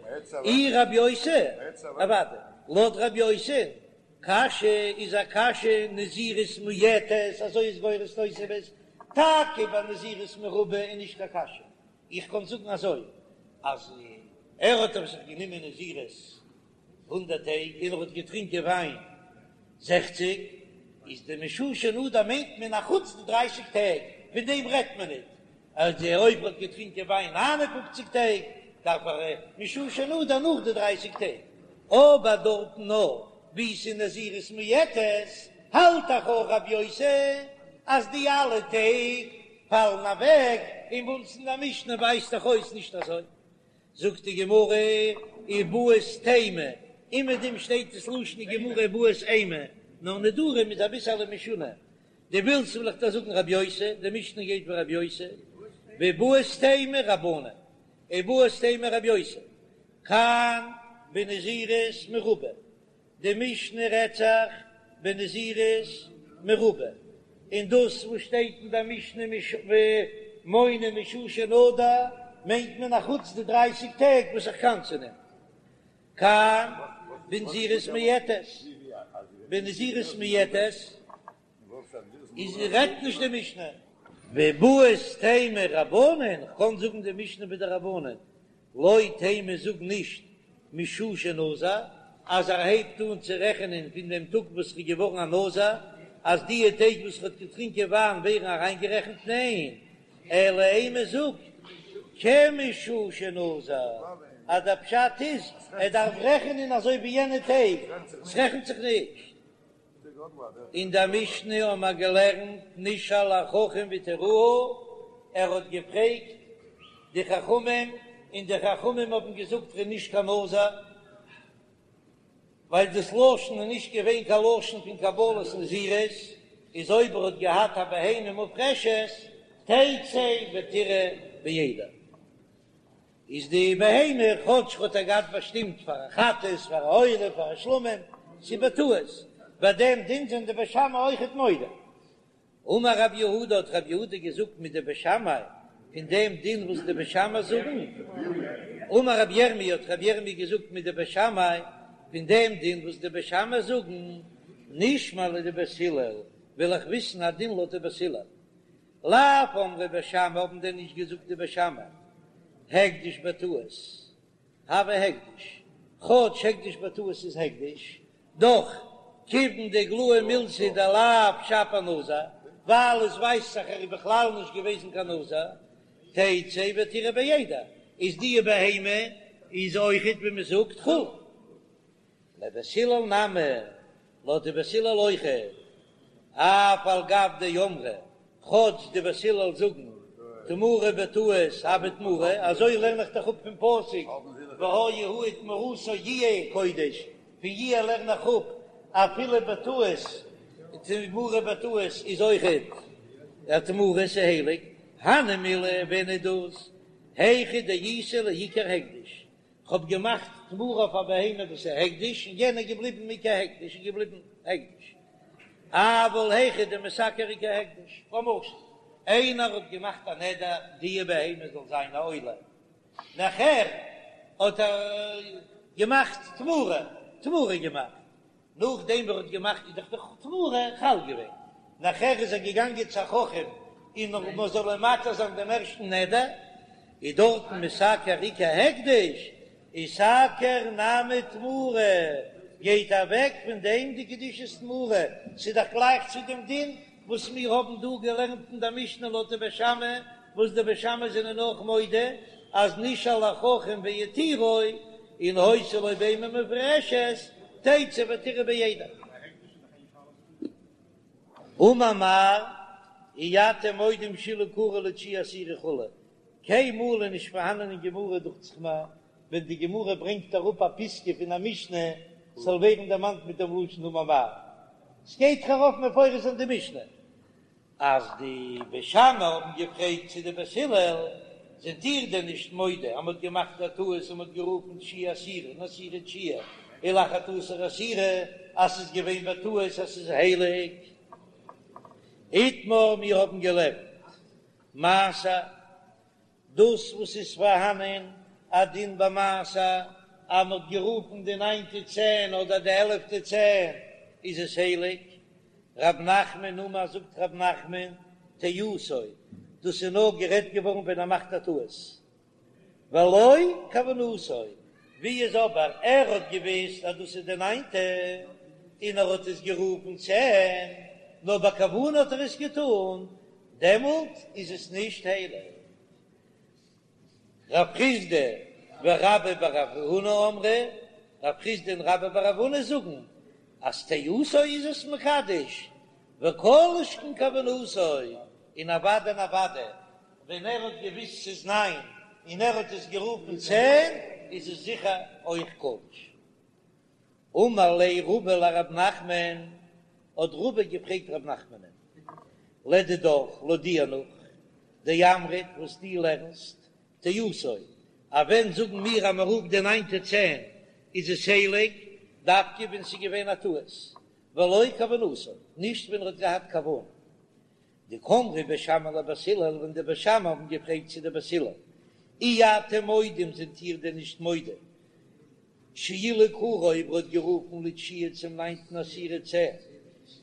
אי רב יוסי, אוודאי, לויט רב יוסי, קשיא איז א קשיא נזירות מועטת, אזוי איז גורס תוספות, טאקע ביי נזירות מרובה איז נישט קיין קשיא, איך קען זאגן אזוי אז ער האט אויף זיך גענומען נזירות הונדערט טעג און ער האט געטרינקען וויין זעכציג, איז די משעה שנדר מיינט מען א חוץ די דרייסיג טעג, פון דעם רעדט מען ניט, אז אויב ער האט געטרינקען וויין 59 טעג דארף ער משעה שנדר נאך די דרייסיג טעג, אבער דארטן נאר ווי ס'איז נזירות מועטת האלט דאך אויך רב יוסי אז די אלע טעג פאלן אוועק, און ביי אונז אין די משנה ווייזט דאך אויס נישט אזוי. זאגט די גמרא איבעית אימא, אומעדום שטייט עס לשון די גמרא איבעית אימא, נאר נדרים איז אביסעלע משונה, דו ווילסט וועל איך דיר זאגן רב יוסי, די משנה גייט ווי רב יוסי, ואיבעית אימא רבנן, איבעית אימא רב יוסי, כאן בנזירות מרובה, די משנה רעדט זיך בנזירות מרובה, און דאס וואס שטייט אין די משנה מונה משעה שנדר מיינט מען אחוץ די דרייסיג טעג וואס איך קנס'ן אים. כאן בנזירות מועטת, בנזירות מועטת איז רעדט נישט די משנה. ואיבעית אימא רבנן, כ'קען זאגן די משנה ווי די רבנן, לא תימא זאג נישט משעה שנזר, אז ער הייבט אן צו רעכענען פון דעם טאג וואס ער איז געווארן א נזיר, אז דיע טעג וואס ער האט געטרינקען וויין ווערן אריינגערעכנט, ניין, אלא אימא זאג כמשעה שנזר, אז דער פשט איז ער דארף רעכענען אזוי ווי יענע טעג, ס'רעכנט זיך נישט. אין דער משנה האבן מיר געלערנט נשאל החכם והתירוהו, ער האט געפרעגט די חכמים און די חכמים האבן געזאגט ער איז נישט קיין נזיר, ווייל דאס לשון איז נישט געווען קיין לשון פון קבלת נזירות, איז אויב ער האט געהאט א בהמה מופרשת תצא ותרעה בעדר. איז די בהמה כאטש האט ער געהאט באשטימט פאר א חטאת, פאר א עולה, פאר א שלמים, ס'איז בטעות, ביי דעם דין זענען די בית שמאי אויכעט מודה. אמר רב יהודה האט רב יהודה געזאגט מדבית שמאי, פון דעם דין וואס די בית שמאי זאגן, אמר רב ירמי' האט רב ירמי' געזאגט מדבית שמאי, פון דעם דין וואס די בית שמאי זאגן, נשמע לדבית הלל, וויל איך וויסן א דין לויט די בית הלל. לאו אמרי בית שמאי האבן דען נישט געזאגט די בית שמאי הקדש בטעות הוי הקדש, כאטש הקדש בטעות איז הקדש, דאך כיוון דאיגלאי מילתא דלאו שפיר נזיר, ווייל עס ווייזט זיך ער איז בכלל נישט געוועזן קיין נזיר, תצא ותרעה בעדר, איז די בהמה איז אויכעט ווי מען זאגט חולין. לבית הלל נמי, לויט די בית הלל אויכעט, אף על גב דאמרי, כאטש די בית הלל זאגן תמורה בטעות הוי תמורה, אזוי לערן איך דאך אפ פון פסוק והיה הוא ותמורתו יהיה קודש, פון יהיה לערן איך אפ אפילו בטעות, תמורה בטעות איז אויכעט א תמורה ס'הייליג, הני מילי ווען איז דאס היכא דאיתיה לעיקר הקדש, כ'האב געמאכט תמורה אויף א בהמה וואס איז הקדש, און יענער איז געבליבן עיקר הקדש איז געבליבן הקדש. אבל היכא דמתעקר עיקר הקדש, למשל איינער האט געמאכט א נדר די בהמה זאל זיין א עולה, נאכער האט ער געמאכט תמורה, תמורה געמאכט, נאכדעם ווי ער האט געמאכט איז דאך די תמורה חל געווען, נאכער איז ער געגאנגען צו א חכם און מען זאל אים מתיר זיין דעם ערשטן נדר, איז דארטן מתעקר עיקר הקדש, איתעקר נמי תמורה, גייט אוועק פון דעם די קדושת תמורה, ס'איז דאך גלייך צו דעם דין וואס מיר האבן דא געלערנט אין דער משנה לויט די בית שמאי, וואס די בית שמאי זענען אויך מודה אז נשאל החכם והתירו, און היתה לו בהמה מופרשת, תצא ותרעה בעדר. אמר מר, אי אתם מודים שאילו קרא לתשיעי עשירי כו'. קיינמאל איז נישט פארהאנען אין גמרא דוכט זיך מיר ווען די גמרא ברענגט אראפ א פיסקא פון א משנה זאל ווערן דערמאנט מיט דעם לשון אמר מר. ס'גייט דאך ארויף מפורש אין די משנה אז די בית שמאי האבן געפרעגט צו די בית הלל, זענט איר דען נישט מודה אז מ'האט געמאכט א טעות און מ'האט גערופן תשיעי עשירי און עשירי תשיעי ולאחד עשר עשירי אז ס'איז געווען בטעות אז ס'איז הייליג? איתמר מיר האבן געלערנט מעשר, דאס וואס איז פארהאנען א דין ביי מעשר אז מ'האט גערופן די ניינטע צען אדער די עלעפטע צען איז עס הייליג, רב נחמן אמר זאגט רב נחמן טעותו, דאס איז נאר גערעדט געווארן ווען ער מאכט א טעות, ולא כוונתו, ווי איז אבער ער האט געוויסט אז דאס איז די ניינטע און ער האט עס גערופן צען, נאר בכוונה האט ער עס געטון, דעמאלט איז עס נישט הייליג. רב חסדא ורבה בר רב הונא אמרי, רב חסדא און רבה בר רב הונא זאגן אז טעותו איז עס מקדש, וכל שכן כוונתו, און אוודאי און אוודאי ווען ער האט געוויסט ס'איז ניין און ער האט עס גערופן צען איז עס זיכער אויך קדוש. אמר ליה רבא לרב נחמן, האט רבא געפרעגט רב נחמנ'ן, לדידך, לויט דיר נאך, דאמרת וואס דו לערנסט, טעותו, אז ווען זאגן מיר אז מען רופט די ניינטע צען איז עס הייליג, דווקא ווען ס'איז געווען א טעות, ולא כוונתו, נישט ווען ער האט געהאט כוונה. דקאמרי בית שמאי לבית הלל, ווען די בית שמאי האבן געפרעגט צו די בית הלל, אי אתם מודים זענט איר דען נישט מודה שאילו קרא אויב ער האט גערופן לתשיעי צום ניינטן עשירי צען,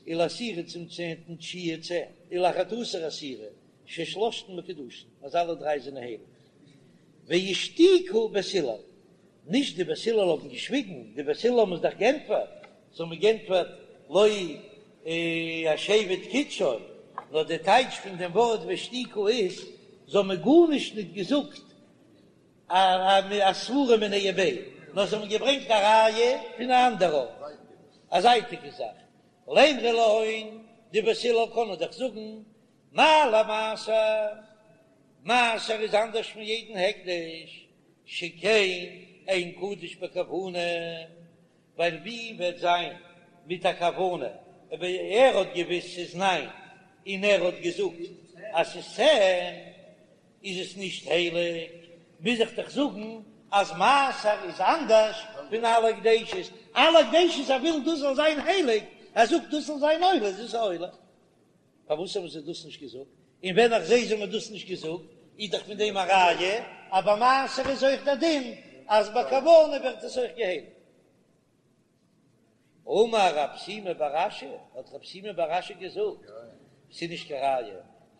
ולעשירי צום צענטן תשיעי צען, ולאחד עשר עשירי, ששלשתן מקודשין, אז אלע דריי זענען הייליג. ואישתיקו בית הלל, נישט די בית הלל האבן געשוויגן, די בית הלל האבן עס דאך גענטפערט, זיי האבן גענטפערט לא השבט קידשו, נאר די טייטש פון דעם ווארט ואישתיקו איז, זיי האבן גארנישט נישט געזאגט א סברא מיניה וביה, נאר זיי האבן געברענגט א ראיה פון א אנדער ארט, א זייטיגע זאך. לימרו להון, די בית הלל קענען דאך זאגן, מה למעשר, מעשר איז אנדערש פון יעדן הקדש, שכן אין קדוש בכוונה, ווייל ווי וועט זיין מיט א כוונה, אויב ער האט געוויסט ס'איז ניין און ער האט געזאגט אז ס'איז צען, איז עס נישט הייליג, מוז איך דאך זאגן אז מעשר איז אנדערש פון אלע הקדשות, אלע הקדשות ער וויל דאס זאל זיין הייליג, ער זאגט דאס זאל זיין עולה, איז עס עולה. פארוואס האבן זיי דאס נישט געזאגט? און ווען איך זעה זיי האבן דאס נישט געזאגט, איז דאך פון דעם א ראיה אז ביי מעשר איז אויך דער דין אז בכוונה ווערט עס אויך געהייליגט. אמר רב שימי בר אשי, האט רב שימי בר אשי געזאגט, ס'איז נישט קיין ראיה,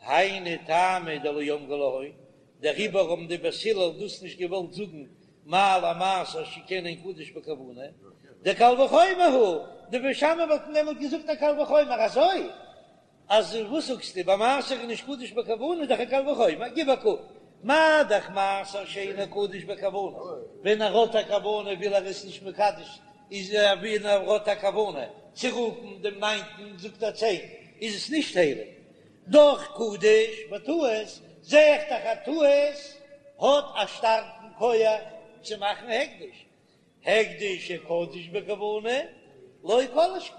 היינו טעמא דלא אמרי להון, דעריבער האבן די בית הלל דאס נישט געוואלט זאגן מה למעשר שכן אין קדוש בכוונה, דקל וחומר הוא, די בית שמאי וואלטן דעמאלט געזאגט א קל וחומר אזוי אז וואס זאגסטו ביי מעשר איז נישט קדוש בכוונה איז דאך א קל וחומר, גיב א קוק, מה דאך מעשר שאינו קדוש בכוונה, ווען ער האט א כוונה וויל ער עס נישט מקדש איז ווען ער האט א כוונה צו רופן דעם ניינטן זאגט ער צען איז עס נישט הייליג, דאך קדוש בטעות, זע איך דאך א טעות האט א שטארקן כח צו מאכן הקדש, הקדש שקדוש בכוונה לא כל שכן,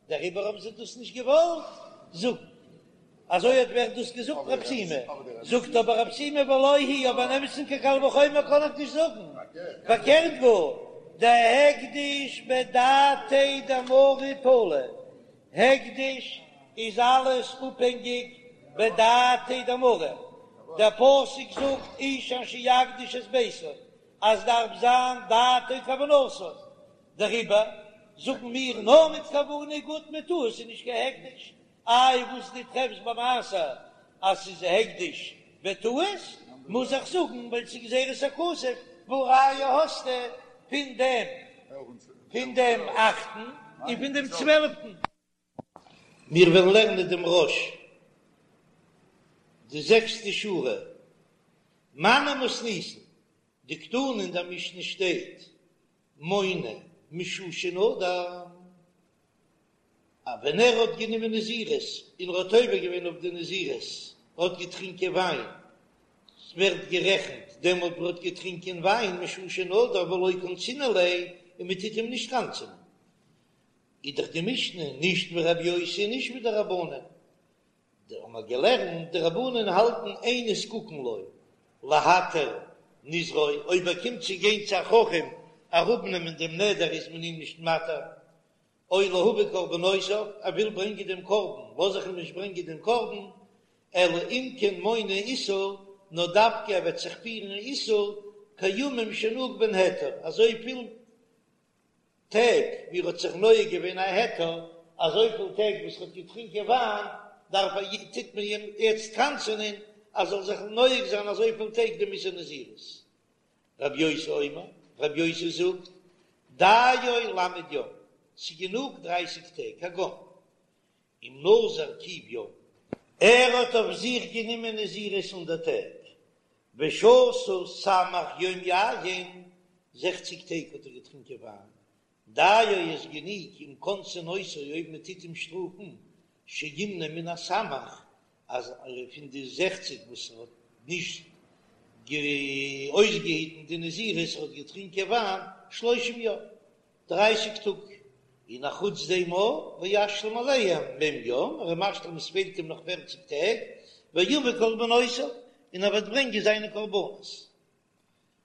דעריבער האבן זיי דאס נישט געוואלט זאגן. אזוי האט ווערט דאס געזאגט רב שימי, זאגט אבער רב שימי ולא היא אבער אין אמת'ן קיין קל וחומר קען איך נישט זאגן, פארקערט גאר, דהקדש בדעתיה דמריה תלי, הקדש איז אלעס אפהענגיק בדעתיה דמריה, דער פסוק זאגט איש אשר יקדיש את ביתו אז דארף זיין דעתו כוונתו, דעריבער זאגן מיר נאר מיט כוונה גוט מיט טעות איז נישט קיין הקדש, איי וואס דו טרעפסט ביי מעשר אז ס'איז הקדש בטעות, מוז איך זאגן ווייל ס'איז גזירת הכתוב, והא ראיה האסטו פון דעם פון דעם אכטן און פון דעם צוועלפטן. מיר וועלן לערנען דעם רא"ש, די זעקסטע שורה, מני מתניתין, דקתני אין דער משנה שטייט מונה משעה שנדר, אז ווען ער האט גענומען נזירות און ער האט עובר געווען אויף די נזירות, ער האט געטרינקען וויין. ווערט גערעכנט דעמאלט וואס ער האט געטרינקען וויין משעה שנדר ולא קנסינן ליה און מען טוט אים נישט קנס'ענען. איז דאך די משנה נישט ווי רבי יוסי און נישט ווי די רבנן. די האבן מיר געלערנט די רבנן האלטן אין נזקקין לו להתיר נזרו אויב ער קומט צו גיין צו א חכם אראפנעמען דעם נדר איז מען אים נישט מתיר או להביא קרבנותיו, ער וויל ברענגען דעם קרבן, לאז איך אים נישט ברענגען דעם קרבן, אלא אם כן מונה איסור, נאר דווקא ער וועט זיך פירן איסור, כימים שנהג בהן היתר, אזויפיל טעג ווי ער האט זיך נוהג געווען א היתר, אזויפיל טעג וואס ער האט געטרינקען וויין, דארף ער, טוט מען אים יעצט קנס'ענען אז ער זאל זיך נוהג זיין אזויפיל טעג דעם איסור נזירות. רבי יוסי אומר, רבי יוסי זאגט, דיו למד יום, ס'גענוג דרייסיג טעג, כגון אם נזר קוף יום, ער האט אויף זיך גענומען נזירות הונדערט טעג, ושתה סמך יום יין, זעכציג טעג האט ער געטרינקען וויין, דיו איז גענוג אם קונסין אותו אויב מען טוט אים שטראפן, שימנה מן הסמך, אז פון די זעכציג וואס ער האט נישט אויסגעהיטן די נזירות, ער האט געטרינקען וויין שלושים יום, דרייסיג טאג, און אחוץ דעם אויך וישלים עליהם מ' יום, ער איז משלים עס פעלט אים נאך פערציג טעג, ויביא קרבנותיו, און ער וועט ברענגען זיינע קרבנות.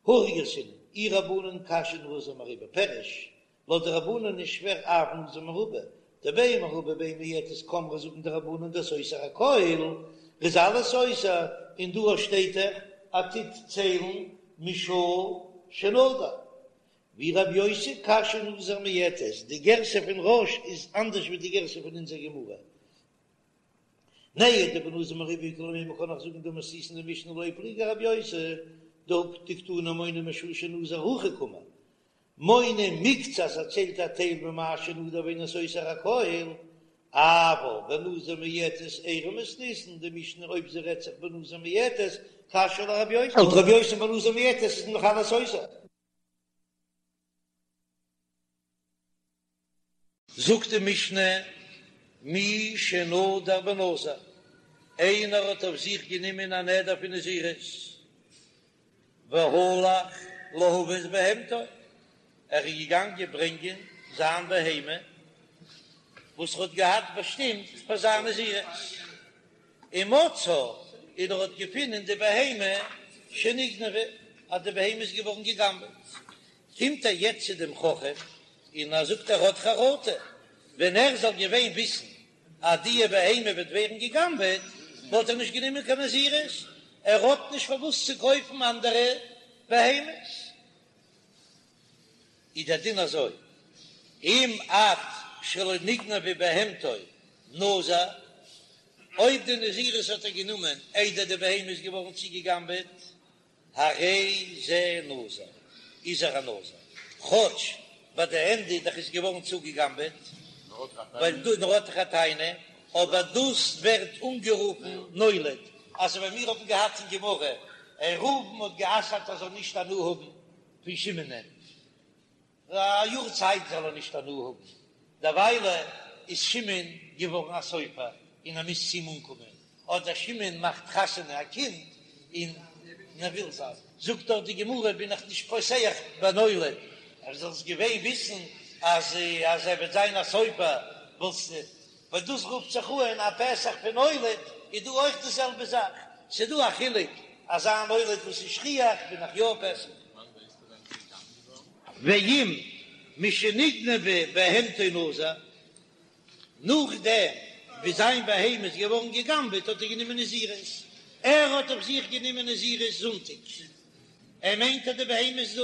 הכי גרסינן, אי רבנן קשיא נזיר מרובה, פירוש, לויט די רבנן איז שווער אף נזיר מרובה, דבין מרובה בין מועטת קאמרי זאגן די רבנן דסותר הכל, ר'איז אלעס סותר, און דא שטייט דאך אז טוט ציילן משעה שנדר. ואי רבי יוסי קשיא נזיר מועטת, די גירסא פון רא"ש איז אנדערש ווי די גירסא פון אונזער גמרא. נהי דבנזיר מרובה איכא למימר קען איך זאגן דמתניתין די משנה לא פליגי ארבי יוסי דקתני מונה משעה שנזר הכי קאמר מונה מקצת ער ציילט א טייל ממה שנדר ואינו סותר הכל אבל בנזיר מועטת איירי מתניתין די משנה אויב זי רעדט זיך בנזיר מועטת קשיא לרבי יוסי לויט רבי יוסי בנזיר מועטת איז נאך אלעס סותר. זאגט די משנה, מי שנדר בנזיר, איינער האט אויף זיך גענומען א נדר פון נזירות, והלך להביא את בהמתו, ער איז געגאנגען ברענגען זיין בהמה וואס ער האט געהאט באשטימט פאר זיין נזירות, ומצאה, און ער האט געפונען די בהמה שנגנבה, אז די בהמה איז געווארן גע'גנב'עט, קומט ער יעצט צו דעם חכם און ער זאגט ער האט חרטה, ווען ער זאל געווען וויסן אז די בהמה וועט ווערן גע'גנב'עט וואלט ער נישט גענומען קיין נזירות, ער האט נישט פארוואס צו קויפן אנדערע בהמות. איז דער דין אזוי, אם עד שלא נגנבה בהמתו נזר, אויב די נזירות האט ער גענומען איידער די בהמה איז געווארן צוגע'גנב'עט, הרי זה נזיר, איז ער א נזיר, כאטש ביי די ענדע דאך איז געווארן צוגעגנבעט, ווייל דא נאר האט ער א טענה, אבער דאס ווערט אנגערופן נולד, אזוי ווי מיר האבן געהאט אין גמרא, ראובן האט גע'אסר'ט ער זאל נישט הנאה האבן פון שמעונ'ען. א יאר צייט זאל ער נישט הנאה האבן, דערוויילע איז שמעון געווארן א סופר און ער מוז צו אים אנקומען, אדער שמעון מאכט חתונה א קינד און ער וויל זיין, זאגט דאך די גמרא בין איך נישט פותח בנולד, אז זאלסט געווען וויסן אז אז ער וועט זיין א סופר וואלסטו, ווייל דאס רופט זיך אן א פתח פון נולד, איז דא אויך די זעלבע זאך, ס'איז דא א חילוק אזא נולד וואס איז שכיח בין איך יא פותח. ואם משנגנבה בהמתו נזר, נאכדעם ווי זיין בהמה איז געווארן גע'גנב'עט האט ער גענומען נזירות, ער האט אויף זיך גענומען נזירות זונטאג, ער מיינט אז די בהמה איז דא,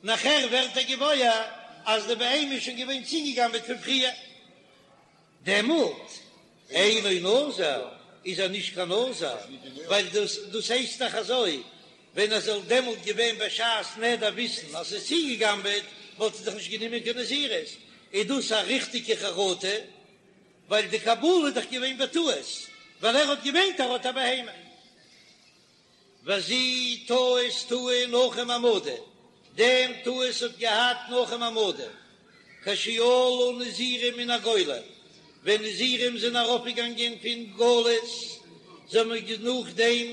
נאכער ווערט ער געוואויר אז די בהמה איז שוין געווען צוגע'גנב'עט פון פריער. דעמאלט אינו נזיר, איז ער נישט קיין נזיר, ווייל דאס דאס הייסט דאך אזוי, ווען ער זאל דעמאלט געווען בשעת נדר וויסן אז ס'איז צוגעגנבעט, וואלט ער דאך נישט גענומען קיין נזירות, איז דאס א ריכטיגע חרטה, ווייל די קבלה איז דאך געווען בטעות, ווייל ער האט געמיינט ער האט א בהמה. וזו טעות טעה נחום המדי, דעם טעות האט געהאט נחום המדי, כשעלו נזירים מן הגולה, ווען נזירים זענען ארויפגעגאנגען פון גלות, זיי האבן נאכדעם.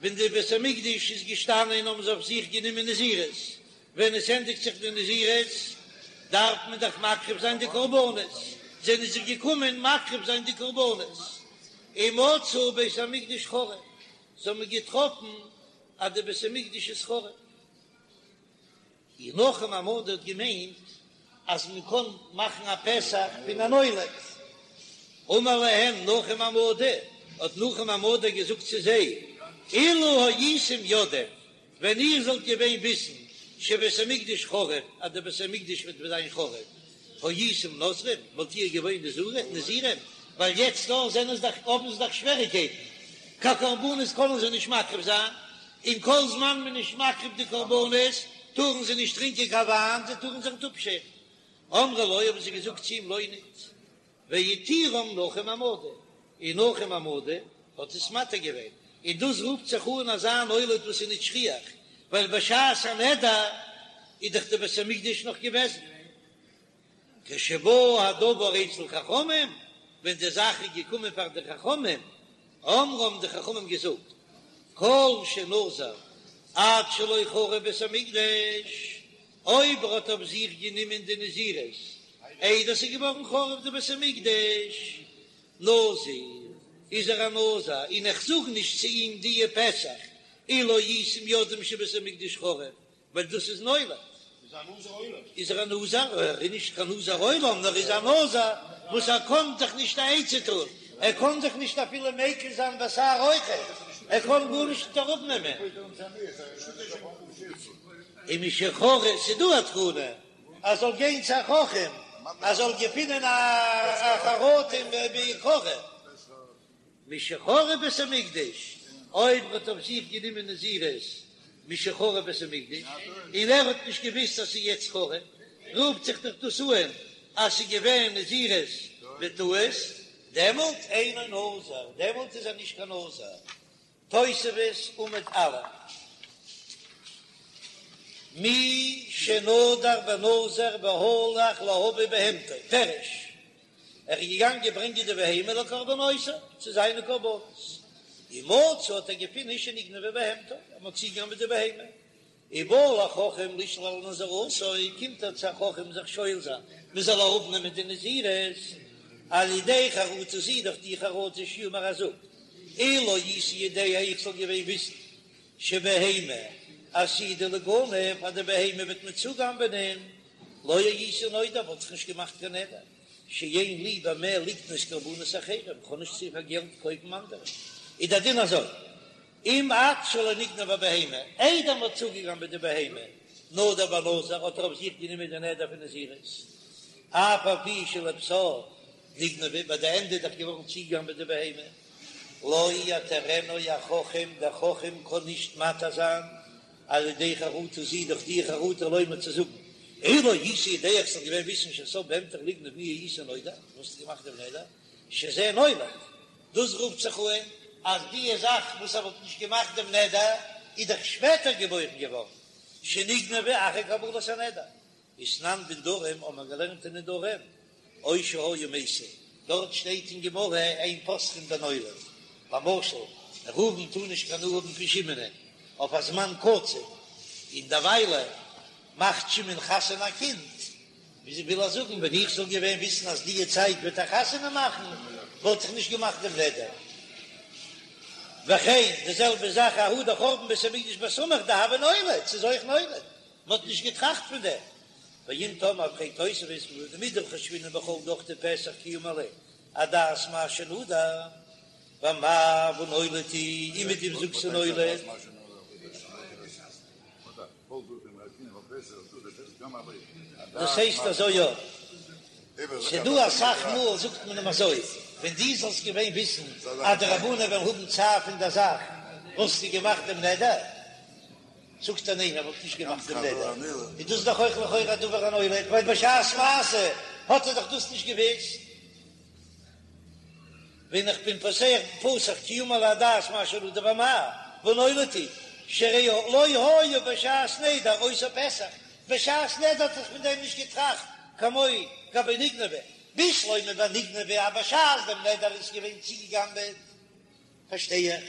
ווען די בית המקדש איז געשטאנען האבן זיי אויף זיך גענומען נזירות, ווען עס ענדיגט זיך די נזירות דארף מען דאך מקריב זיין די קרבנות, זענען זיי געקומען מקריב זיין די קרבנות, ומצאו בית המקדש חרב, זיי האבן געטראפן אז די בית המקדש איז חרב. און נחום המדי האט געמיינט אז מען קען מאכן א פתח פון א נולד. אמר להם נחום המדי, האט נחום המדי געזאגט צו זיי, אילו הייתם יודעים, ווען איר זאלט געווען וויסן שבית המקדש חרב, אז דער בית המקדש וועט זיין חרב, הייתם נוזרים, וואלט איר געווען נזירים, ווייל יעצט דא זענען זיי דאך, האבן זיי דאך שוועריקייטן, קיין קרבנות קענען זיי נישט מקריב זיין, און כל זמן מען איז נישט מקריב די קרבנות טארן זיי נישט טרינקען קיין וויין, זיי טארן זיך נישט אפשערן. אמרו לו, האבן זיי געזאגט צו אים, לא ניט. והתירם נחום המדי, און נחום המדי האט עס מתיר געווען, און דאס רופט זיך אן אזא נולד וואס איז נישט שכיח, ווייל בשעת הנדר איז דאך די בית המקדש נאך געוועזן. כשבא הדבר אצל חכמים, ווען די זאך איז געקומען פאר די חכמים, אמרו האבן די חכמים געזאגט, כל שנזר עד שלא חרב בית המקדש, אויב ער האט אויף זיך גענומען די נזירות איידער ס'איז געווארן חרוב די בית המקדש, נזיר, איז ער א נזיר, און איך זאג נישט צו אים דיע פתח, אילו הייתם יודעים שבית המקדש חרב, ווייל דאס איז נולד. איז ער א נזיר? ער איז נישט קיין נזיר עולם, נאר איז א נזיר וואס ער קען זיך נישט א עצה טון, ער קען זיך נישט אפילו מיקל זיין בשער אויכעט, ער קען גארנישט נישט אראפנעמען. און משחרב, ס'איז דא א תקנה ער זאל גיין צו א חכם, ער זאל געפינען א חרטה מעיקרא. משחרב בית המקדש, אויב ער האט אויף זיך גענומען נזירות משחרב בית המקדש, און ער האט נישט געוואוסט אז ס'איז יעצט חרב, רופט זיך דאך דאס אן אז ס'איז געווען נזירות בטעות, דעמאלט אינו נזיר, דעמאלט איז ער נישט קיין נזיר. תוספות עמוד א', מי שנדר בנזיר והלך להביא בהמתו, פירוש, ער איז געגאנגען ברענגען די בהמה לקרבנותיו, צו זיינע קרבנות, ומצא האט ער געפונען שנגנבה בהמתו, אז מען האט צוגעגנבעט די בהמה, ובא לחכם לשאול על נזירותו, קומט ער צו א חכם זיך שואל זיין מען זאל אראפנעמען די נזירות, על ידי חרטה זו דורך די חרטה שיאמר ער זאגט, אילו הייתי יודע איך זאל געווען וויסן שבהמה עתידה ליגנב אז די בהמה וועט מען צוגנבענען, לא הייתי נודר וואלט איך נישט געמאכט קיין נדר, שאין לי במה לקנות קרבנות אחרים, איך האב נישט צו פאר געלט קויפן אנדערע, איז דער דין אזוי, אם עד שלא נגנבה בהמה, איידער מ'האט צוגעגנבעט די בהמה, נדר בנזיר, האט ער אויף זיך גענומען די נדר פון נזירות, אף על פי שלבסוף נגנבה, ביי די ענדע איז דאך געווארן צוגעגנבעט די בהמה, לא יתירנו החכם, דער חכם קען נישט מתיר זיין, על ידי חרטה זו דורך די חרטה לומר צו זאגן, אילו הייתי יודע איך זאל געווען וויסן שסוף בהמתך ליגנב מי היית נודר, וואלסטו געמאכט דעם נדר, שזה נולד, דאס רופט זיך אן אז די זאך וואס ער וואלט נישט געמאכט דעם נדר איז דאך שפעטער געבוירן געווארן, שנגנבה אחר קבלת הנדר. ותנן בנדרים האט מען געלערנט אין נדרים, או שהיה מסב, דארט שטייט אין גמרא אין פותחין בנולד, למשל ראובן טאר נישט קיין הנאה האבן פון שמעונ'ען אויף א זמן קצוב, און דערוויילע מאכט שמעון חתונה א קינד, וויאזוי וויל ער זאגן, ווען איך זאל געווען וויסן אז דיע צייט וועט ער חתונה מאכן, וואלט איך נישט געמאכט דעם נדר. וכן, די זעלבע זאך ההוא דחורבן בית המקדש בסמוך דהוה נולד, ס'איז אויך נולד, מ'האט נישט געטראכט פון דעם. ואם תאמר פרעגט תוספות מדחשבינן בכל דוכתי פתח כי אמר ליה אדעת מה שנדר, ואמאי והא נולד הוא, און מיט דעם זאגסטו נולד. דאס הייסט אזוי יא. ס'דא אסאך מאל זאגט מען אים אזוי, ווען דו זאלסט געווען וויסן אז די רבנן וועלן האבן צער פון דער זאך, וואלסטו געמאכט דעם נדר? זאגט ער ניין, ער וואלט נישט געמאכט דעם נדר. איז דאס דאך אויך לכאורה א דבר הנולד, ווייל בשעת מעשה האט ער דאך דאס נישט געוואוסט. ווען איך בין פותח פתח כי אמר ליה אדעת מה שנדר ואמאי והא נולד הוא שהרי לא היה בשעת נדר אותו פתח, בשעת נדר האט ער זיך פון דעם נישט געטראכט כמו גבי נגנבה, בשלמא ביי נגנבה אז בשעת דעם נדר איז געווען צוגעגנבעט פארשטיי איך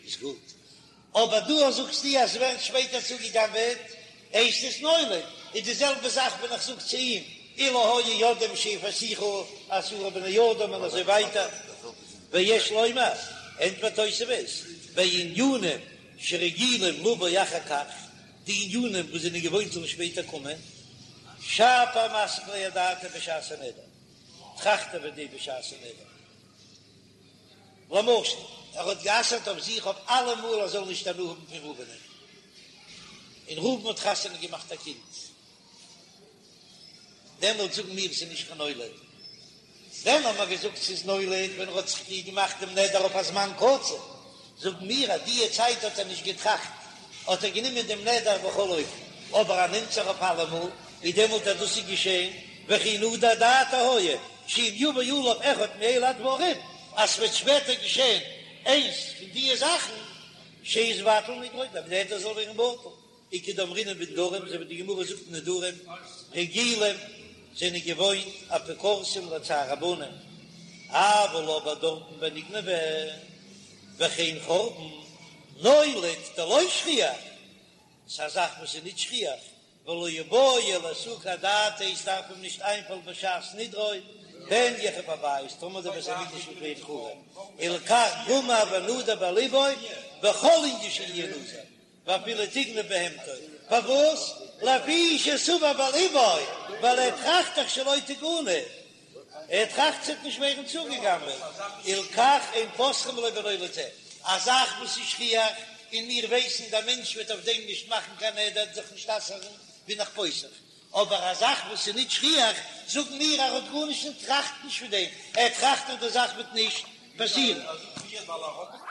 איז גוט. אבער דא זאגסטו אז ס'ווערט שפעטער צוגעגנבעט, הייסט עס נולד, איז די זעלבע זאך ווען איך זאג צו אים אילו היו יודעים שיפייסוך עשרה בני אדם און אזוי ווייטער. ויש לומר, ענטפערט תוספות, בענינים שרגילים לבוא אחר כך, די ענינים וואס זענען געוואוינט זאלן שפעטער קומען, שפיר מסיק ליה אדעתיה בשעת הנדר, טראכט ער וועגן דעם בשעת הנדר. למשל, ער האט גע'אסר'ט אויף זיך אויף אלעמאל ער זאל נישט הנאה האבן פון ראובנ'ען, און ראובן האט חתונה געמאכט א קינד, דעמאלט זאגן מיר ס'איז נישט קיין נולד. ווען האט מען געזאגט ס'איז נולד? ווען ער האט זיך געמאכט דעם נדר אויף א זמן קצוב, זאגן מיר אז דיע צייט האט ער נישט געטראכט, האט ער גענומען דעם נדר בכל אופן, אבער ער נעמט זיך אויף אלעמאל, איז דעמאלט אז דאס איז געשען, וכי נדר דעתו היה, שאם יבא עליו אחד מאלה הדברים, אז ס'וועט שפעטער געשען איינס פון דיע זאכן, שיתבטל נדרו, דער נדר זאל ווערן בטל. וכדאמרינן בנדרים, אזוי ווי די גמרא זאגט אין נדרים, רגילים זענען געוואוינט אפיקורסים לצער הבנים, אבל אבער דארטן ביי נגנבה וכן חורבן, נולד דלא שכיח, ס'איז א זאך וואס איז נישט שכיח, ולא איבעי לאסוקי אדעתיה, עס דארף אים נישט איינפאלן בשעת נדרו, פן יחרב הבית, טאמער דער בית המקדש וועט ווערן חרוב, הלכך גמר ונדר בליבו בכל ענין שיהיה נזיר. ואפילו תגנב בהמתו, פארוואס? לפי שסבור בליבו, ווייל ער טראכט דאך שלא תגנב, ער טראכט ס'וועט נישט ווערן צוגעגנבעט, הלכך אין פותחין לו בנולד זה, א זאך וואס איז שכיח, און מיר ווייסן דער מענטש וועט אויף דעם נישט מאכן קיין נדר, זיך נישט אסר'ן, בין איך פותח, אבער א זאך וואס איז נישט שכיח, זאגן מיר ער האט גארנישט און טראכט נישט פון דעם, ער טראכט אז די זאך וועט נישט פאסירן.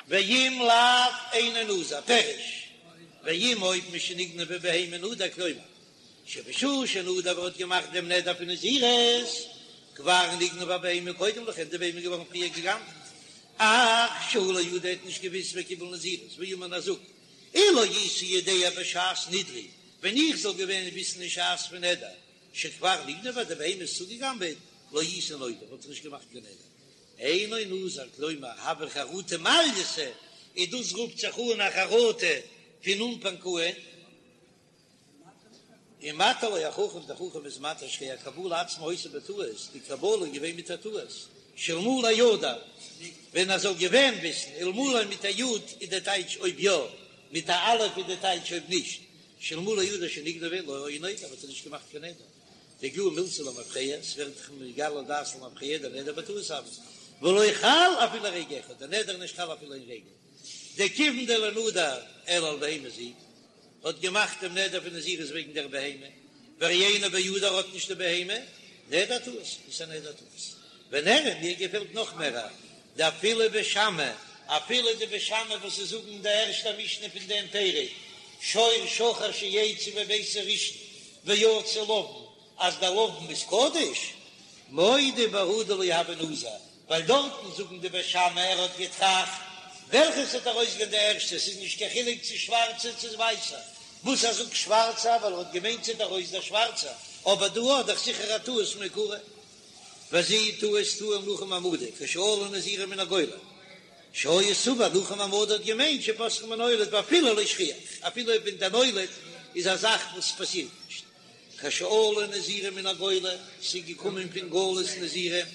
ואם לאו אינו נזיר, פירוש, ואם אויב משנגנבה בהמה נדר כלומר, שבשעה שנדר ער האט געמאכט דעם נדר פון נזירות, כבר נגנבה בהמה קודם לכן, די בהמה איז געווארן פריער גע'גנב'ט, אך שהוא לא ידע ער האט נישט געוויסט וקיבל נזירות, ואמר און ער זאגט, אילו הייתי יודע בשעת נדרי, ווען איך זאל געווען וויסן אין שעת פון נדר, שכבר נגנבה די בהמה איז צוגעגנבעט, לא הייתי נודר, וואלט איך נישט געמאכט קיין נדר. אינו נזיר, כלומר, הוה חרטה מעלייתא, און דאס רופט זיך אן א חרטה פון אנפאנג אן. ומתיר לו החכם, דער חכם איז מתיר שהרי הקבלה עצמה היתה בטעות, די קבלה איז געווען מיט א טעות, שאלמלי ידע, ווען ער זאל געווען וויסן, אלמלי מיט א י' איז דער טייטש אויב יא, מיט א א' איז דער טייטש אויב נישט, שאלמלי ידע שנגנבה לא היה נודר, וואלט ער נישט געמאכט קיין נדר, דאיגלאי מילתא למפרע, ס'ווערט דאך נתגלה דעת למפרע, דנדר בטעות הוה, ולא חל אפילו רגע אחד, דער נדר איז נישט חל אפילו איין רגע, דכיון דלא נדר אלא על בהמה זו, האט געמאכט דעם נדר פון נזירות וועגן דער בהמה, והרי אינו בידו ער האט נישט די בהמה, נדר טעות, איז א נדר טעות. ונראה מיר געפעלט נאך מער דאפילו בית שמאי, אפילו די בית שמאי וואס זיי זאגן אין די ערשטע משנה פון דעם פרק, שור שחור שיצא מביתו ראשון ויצא לבן, אז דער לבן איז קדוש, מודה בהא דלא הוי נזיר, ווייל דארטן זאגן די בית שמאי ער האט געטראכט וועלכע ס'וועט ארויסגיין די ערשטע, ס'איז נישט קיין חילוק צו שווארצע צו ווייסע, וואס ער זאגט שווארצע ווייל ער האט געמיינט ס'וועט ארויס דער שווארצע, אבער דא האט דאך זיכער א טעות מעיקרא. וזו טעות טעה נחום המדי כשעלו נזירים מן הגולה שהיה סבור נחום המדי האט געמיינט שפותחין בנולד ואפילו לא שכיח אפילו ווען דער נולד איז א זאך וואס פאסירט נישט כשעלו נזירים מן הגולה ס'איז געקומען פון גלות נזירים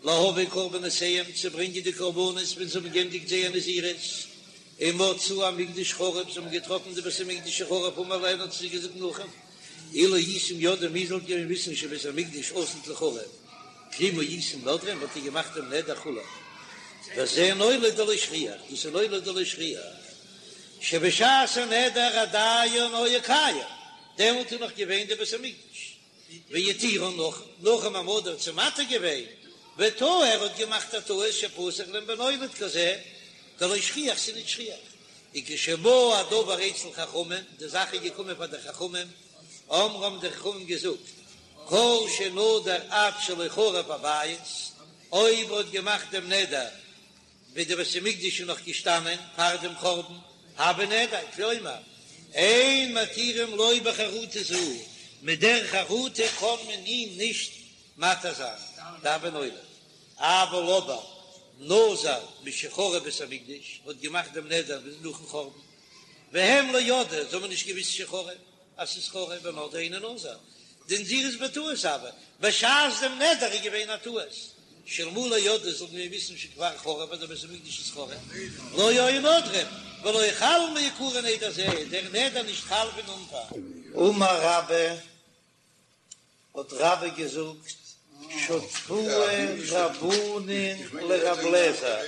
להביא קרבנותיהם צו ברענגען די קרבנות ווען זיי האבן געענדיגט זייער נזירות ומצאו המקדש חרוב זיי האבן געטראפן די בית המקדש חרוב אמר להן האט זיי געזאגט נחום אילו הייתם יודעים איר זאלט געווען וויסן שבית המקדש עתיד ליחרב כלום הייתם נודרים וואלט איר געמאכט דעם נדר כו' וזה נולד דלא שכיח דאס איז נולד דלא שכיח שבשעת הנדר עדיין היה קיים דעמאלט איז נאך געווען די בית המקדש והתירן נחום נחום המדי האט זיי מתיר געווען וטעה ער האט געמאכט א טעות שפתח להם בנולד כזה דלא שכיח ס'איז נישט שכיח וכשבא הדבר אצל חכמים די זאך איז געקומען פאר די חכמים אמרו האבן די חכמים געזאגט כל שנדר עד שלא חרב הבית אויב ער האט געמאכט דעם נדר ווען די בית המקדש איז נאך געשטאנען פאר דעם חורבן, הוי נדר, כלומר, אין מתירים לו בחרטה זו, מיט דער חרטה קען מען אים נישט מתיר זיין, דהוי נולד, אבל אבער נזר משחרב בית המקדש, האט געמאכט דעם נדר נאכן חורבן. והם לא ידעו, זיי האבן נישט געוויסט שחרב, אז ס'איז חרוב ונדרו אינו נזיר, דנזירות בטעות הוה, בשעת דעם נדר איז געווען א טעות, שאלמלא ידעו זאלן מיר וויסן שכבר חרב אז דער בית המקדש איז חרוב, לא היו נודרים, ולא חל מעיקרא נדר זה, דער נדר נישט חל פון אנפאנג. אמר רבה, האט רבה געזאגט, שתקוה רבנן לרב לעזער,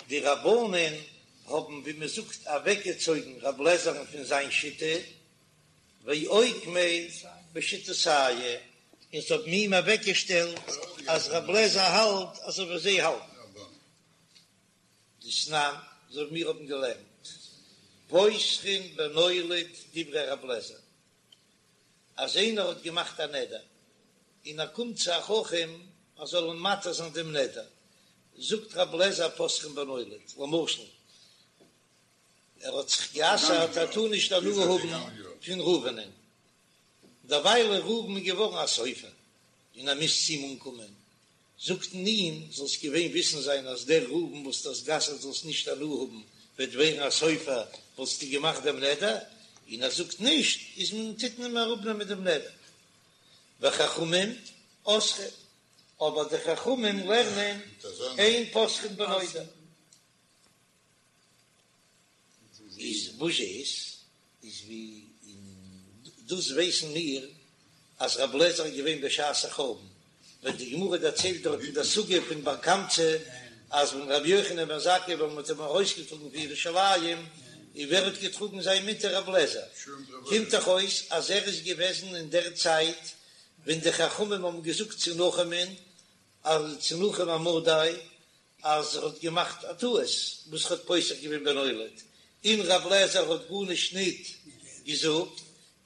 די רבנן האבן ווי מען זאגט אוועקגעצויגן רב לעזער'ן פון זיין שיטה, ואוקמיה בשיטתייהו, און זיי האבן אים אוועקגעשטעלט אז רב לעזער האלט אזוי ווי זיי האלטן. דתנן, אזוי ווי מיר האבן געלערנט, פותחין בנולד דברי רב לעזער, אז איינער האט געמאכט א נדר און ער קומט צו א חכם ער זאל אים מתיר זיין דעם נדר, זאגט רב לעזער פותחין בנולד, למשל ער האט זיך גע'אסר'ט ער טאר נישט הנאה האבן פון ראובנ'ען, דערווייל איז ראובן געווארן א סופר און ער מוז צו אים אנקומען, זאגט מען אים, זאלסט געווען וויסן זיין אז דער ראובן וואס דו האסט גע'אסר'ט זאלסט נישט הנאה האבן, וועט ווערן א סופר, וואלסטו געמאכט דעם נדר? און ער זאגט נישט, איז מען טוט מען אים אראפנעמען דעם נדר. וחכמים אוסרים, אבער די חכמים לערנען אין פותחין בנודר. איז וואס איז איז ווי און דאס ווייסן מיר אז רב לעזער איז געווען בשעת החורבן ווען די גמרא דערציילט דארט אין די סוגיא פון בר קמצא אז ווען רבי יוחנן בן זכאי ווען מ'האט אים ארויסגעטראגן פון ירושלים און ווער האט געטראגן זיין מיטה רב לעזער קומט דאך אויס אז ער איז געוועזן אין דער צייט ווען די חכמים האבן געזאגט צו נחומ'ן אז צו נחום המדי אז ער האט געמאכט א טעות וואס ער האט פותח געווען בנולד, און רב לעזער האט גארנישט ניט געזאגט,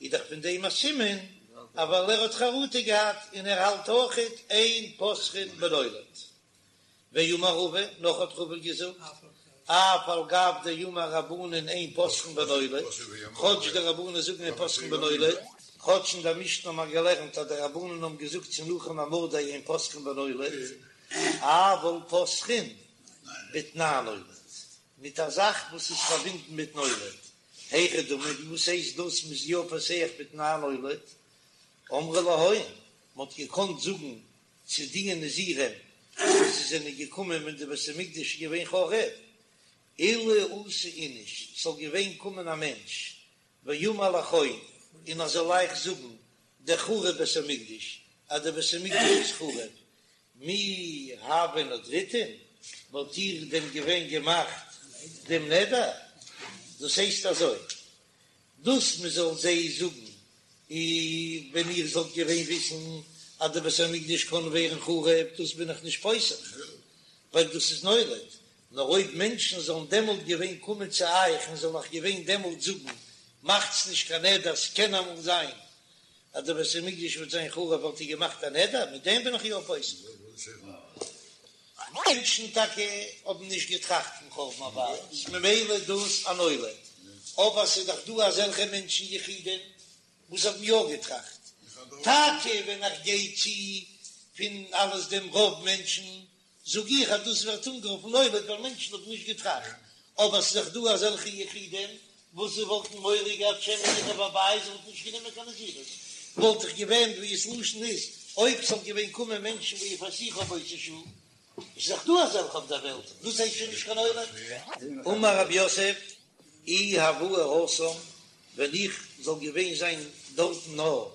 איז דאך פון דעם א סימן אז ווייל ער האט חרטה געהאט און ער האלט אויכעט אין פותחין בנולד. ואמר רבא, נאך האט רבא געזאגט, אף על גב דאמור רבנן אין פותחין בנולד, כאטש די רבנן זאגן אין פותחין בנולד, כאטש אין דער משנה האט מען געלערנט אז די רבנן האבן געזאגט צו נחום המדי אין פותחין בנולד, אבל פותחין בתנאי נולד, מיט א זאך וואס איז פארבינדן מיט נולד, היכי דמי, וואס הייסט דאס מ'איז יא פותח בתנאי נולד? אמרי להון, מ'האט געקאנט זאגן צו די נזירים וואס זיי זענען געקומען ווען די בית המקדש איז געווען חרוב, אילו אתא איניש, ס'זאל געווען קומען א מענטש, ואמר לכון, און ער זאל אייך זאגן, דחרב בית המקדש, אז דער בית המקדש איז חרוב, מי הוה נדריתון, וואלט איר דען געווען געמאכט דעם נדר? דאס הייסט אזוי, דאס מען זאל זיי זאגן, אי ווען איר זאלט געווען וויסן אז דער בית המקדש קען ווערן חרוב, דאס בין איך נישט פותח, ווייל דאס איז נולד, נאר אויב מענטשן זאלן דעמאלט געווען קומען צו אייך און זאלן אייך געווען דעמאלט זאגן, מאכטס נישט קיין נדר, ס'קען אמאל זיין אז דער בית המקדש וועט זיין חרוב וואלט איר געמאכט א נדר, מיט דעם בין איך יא פותח. מענטשן טאקע האבן נישט געטראכט פון חורבן הבית, ממילא איז דאס א נולד, אבער ס'איז דאך דא אזעלכע מענטשן יחידים וואס האבן יא געטראכט, טאקע ווען איך גיי צו פון אלעס דעם רוב מענטשן זאג איך אז דאס ווערט אנגערופן נולד ווייל מענטשן האבן נישט געטראכט, אבער ס'איז דאך דא אזעלכע יחידים וואס זיי וואלטן מורא געהאט שמא יחרב הבית, זיי וואלטן נישט גענומען קיין נזירות, וואלט איך געווען ווי עס לשון איז, אויב ס'זאל געווען קומען מענטשן ויפייסוך באותה שעה, איז דאך דא אזעלכע אויף דער וועלט, דאס הייסט שוין נישט קיין נולד. אמר רב יוסף, אי הואי התם, ווען איך זאל געווען זיין דארטן נאר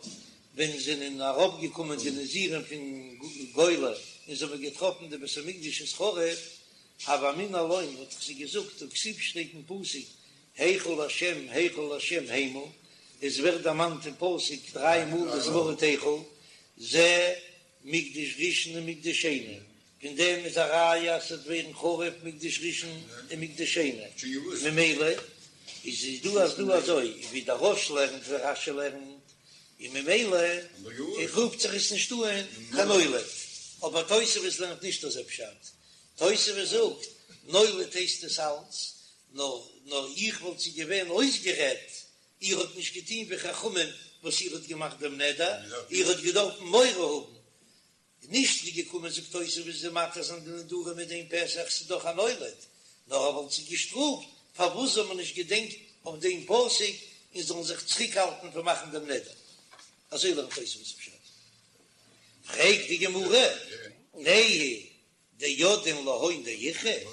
ווען זענען אראפגעקומען די נזירים פון גולה און זיי האבן געטראפן די בית המקדש איז חרוב, הוה אמינא לון וואלט איך זיי געזאגט הא כתיב שטייט אין פסוק היכל השם היכל השם המה, עס ווערט דערמאנט אין פסוק דריי מאל דאס ווארט היכל, זה מקדש ראשון ומקדש שני, פון דעם איז א ראיה אז ס'וועט ווערן חרוב מקדש ראשון און מקדש שני, ממילא איז איז דא אז דא אזוי ווי דער רא"ש לערנט ווי רש"י לערנט, און ממילא רופט זיך עס נישט אן קיין נולד, אבער תוספות לערנט נישט אזוי פשט, תוספות זאגט נולד הייסט עס אלץ, נאר נאר איך וואלט זיי געווען אויסגערעדט, איר האט נישט געטון ווי חכמים וואס איר האט געמאכט דעם נדר, איר האט געדארפן מורא האבן נישט ווי געקומען זאגט תוספות זיי מתיר זיין די נדרים מיט דעם פתח ס'איז דאך א נולד, נאר ער וואלט זיי געשטראפט פארוואס זאל מען נישט געדענקט. אויף דעם פסוק און זאלן זיך צוריקהאלטן פון מאכן דעם נדר. אזוי לערנט תוספות פשט. פרעגט די גמרא, נהי דידעין להון דאיכרי,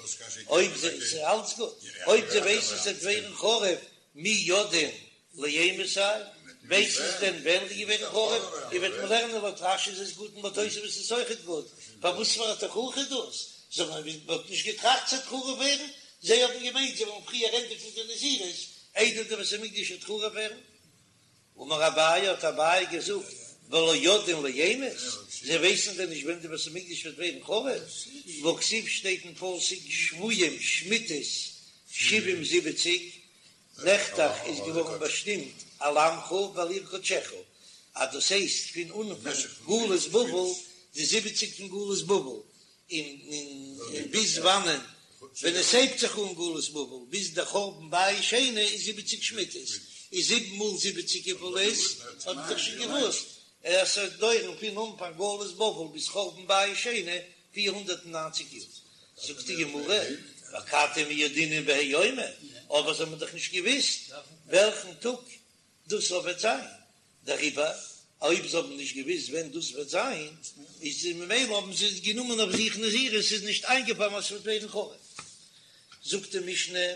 אויב זיי, ס'איז אלץ גוט, אויב זיי ווייסן ס'וועט ווערן חרוב, מי ידעין לאימתי, ווייסן זיי דען ווען ס'וועט ווערן חרוב, און וועט מען לערנען לויט רש"י איז עס גוט און לויט תוספות איז עס אויכעט גוט, פארוואס פאר א תוכחה איז דאס? זיי האבן מ'האט נישט געטראכט ס'וועט חרוב ווערן, זיי האבן געמיינט זיי וועלן פריער ענדיגן די נזירות איידער די בית המקדש וועט חרוב ווערן. אמר אביי האט אביי געזאגט ולא ידעין לאימת, זיי ווייסן דען נישט ווען די בית המקדש וועט ווערן חרוב? והכתיב שטייט אין פסוק שבויים שמיטות שבעים זיבעציג, נחתך איז געווארן באשטימט על עמך ועל עיר קדשך, אז דאס הייסט פון אנפאנג גלות בבל, די זיבעציג פון גלות בבל, און ביז וואנען ווען עס הייבט זיך אן גלות בבל ביז דער חורבן בית שני איז זיבעציג שמיטות, איז זיבן מאל זיבעציג וויפיל איז? האט מען דאך שוין געוואוסט אז ס'וועט דויערן פון אנפאנג גלות בבל ביז חורבן בית שני 490 יאר. זאגט די גמרא, ואכתי מי ידעינן בהאי יומא, אבער זיי האבן דאך נישט געוואוסט וועלכן טאג דאס וועט זיין, דעריבער אויב זיי האבן נישט געוואוסט ווען דאס וועט זיין, איז ממילא האבן זיי גענומען אויף זיך נזירות, ס'איז נישט איינגעפאלן אז ס'וועט ווערן חרוב. זאגט די משנה,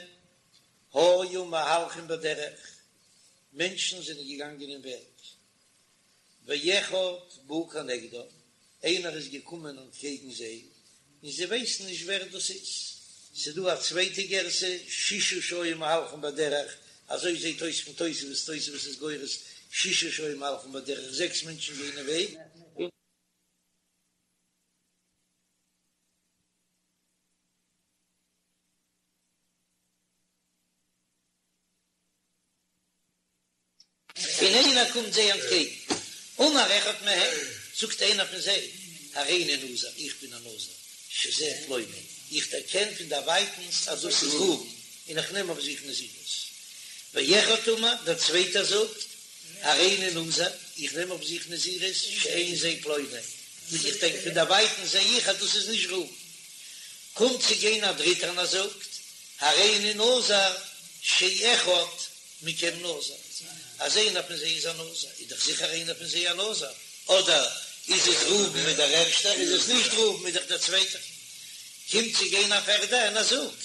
היו מהלכים בדרך, מענטשן זענען געגאנגען אין וועג, ואחד בא כנגדם, איינער איז געקומען אנטקעגן זיי, און זיי ווייסן נישט ווער דאס איז. ס'איז דא א צווייטע גירסא, שישה שהיו מהלכים בדרך, אזוי זעט אויס פון תוספות, תוספות איז גורס שישה שהיו מהלכים בדרך, זעקס מענטשן גייען אין וועג, און. און איינער קומט זיי אנטקעגן, אמר אחד מהם, זאגט איינער פון זיי, הריני נזיר, איך בין א נזיר, שזה פלוני, איך דערקען פון דערווייטנס אז דאס איז ראובן, און איך נעם אויף זיך נזירות. ואחד אמר, דער צווייטער זאגט, הריני נזיר, איך נעם אויף זיך נזירות, שאין זה פלוני, איך דענק פון דערווייטנס זע איך אז דאס איז נישט ראובן. קומט צו גיין א דריטער און ער זאגט, הריני נזיר, שאחד מכם נזיר, אז איינער פון זיי איז א נזיר, איז דאך זיכער איינער פון זיי א נזיר, אדער איז עס ראובן איז דער ערשטער, איז עס נישט ראובן איז דאך דער צווייטער. קומט צו גיין א פערדער און ער זאגט.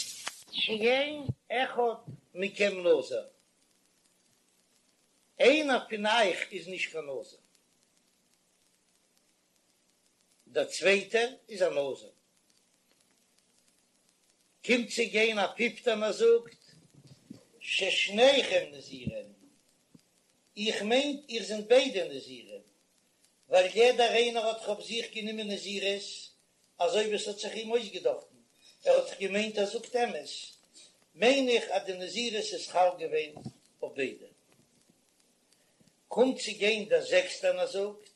שאין אחד מכם נזיר, איינער פון אייך איז נישט קיין נזיר, דער צווייטער איז א נזיר. קומט צו גיין א פיפטער און ער זאגט, ששניכם נזירים, איך מיין איר זענט ביידע נזירים, ווייל יעדער איינער האט דאך אויף זיך גענומען נזירות אזוי ווי עס האט זיך אים אויסגעדאכטן, ער האט דאך געמיינט ער זאגט אמת, מיין איך אז די נזירות איז חל געווען אויף ביידע. קומט צו גיין דער זעקסטער און ער זאגט,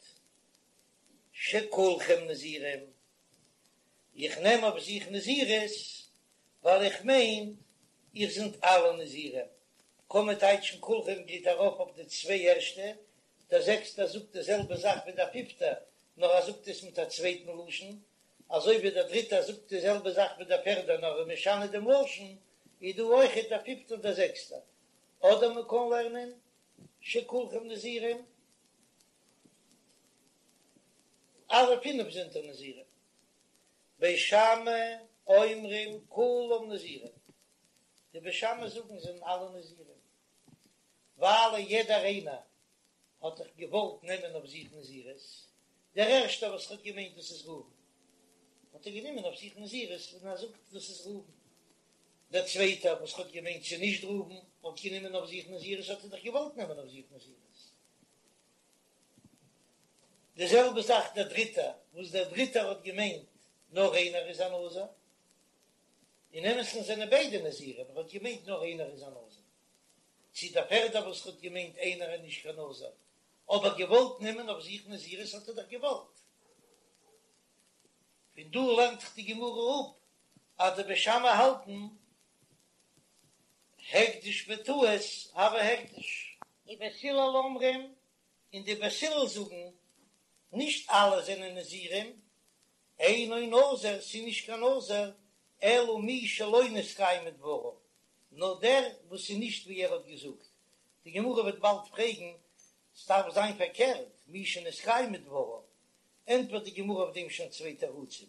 שכולכם נזירים, איך נעם אויף זיך נזירות ווייל איך מיין איר זענט אלע נזירים, קען מען טייטשן כולכם גייט ארויף אויף די צוויי ערשטע, דער זעקסטער זאגט די זעלבע זאך ווי דער פיפטער נאר ער זאגט עס מיט א צווייטן לשון, אזוי ווי דער דריטער זאגט די זעלבע זאך ווי דער פערדער נאר ער איז משנה דעם לשון, איז דא אויכעט דער פיפטער און דער זעקסטער. אדער מען קען לערנען שכולכם נזירים. אלע פינף זענט איר נזירים. בית שמאי אומרים כולם נזירים, די בית שמאי זאגן זענען אלע נזירים, ווייל יעדער איינער האט דאך געוואלט נעמען אויף זיך נזירות, דער ערשטער וואס האט געמיינט דאס איז ראובן, האט ער גענומען אויף זיך נזירות און ער זאגט דאס איז ראובן, דער צווייטער וואס האט געמיינט ס'איז נישט ראובן האט גענומען אויף זיך נזירות האט ער דאך געוואלט נעמען אויף זיך נזירות. די זעלבע זאך דער דריטער, וואס דער דריטער האט געמיינט נאר איינער איז א נזיר, אין אמת'ן זענען ביידע נזירים, ער האט געמיינט נאר איינער איז א נזיר, צו דער פערדער וואס האט געמיינט איינער איז נישט קיין נזיר, אבער געוואלט נעמען אויף זיך נזירות האט ער דאך געוואלט. פון דא לערנט זיך די גמרא אפ אז די בית שמאי האלטן הקדש בטעות הוי הקדש. ובית הלל אומרים, און די בית הלל זאגן, נישט אלע זענען נזירים, אינו נזיר, ס'איז נישט קיין נזיר, אלא מי שלא נתקיימו דבריו, נאר דער וואס איז נישט ווי ער האט געזאגט. די גמרא וועט באלד פרעגן, ס'דארף זיין פארקערט, מי שנתקיימו דבריו, ענטפערט די גמרא אויף דעם שוין צוויי תירוצים,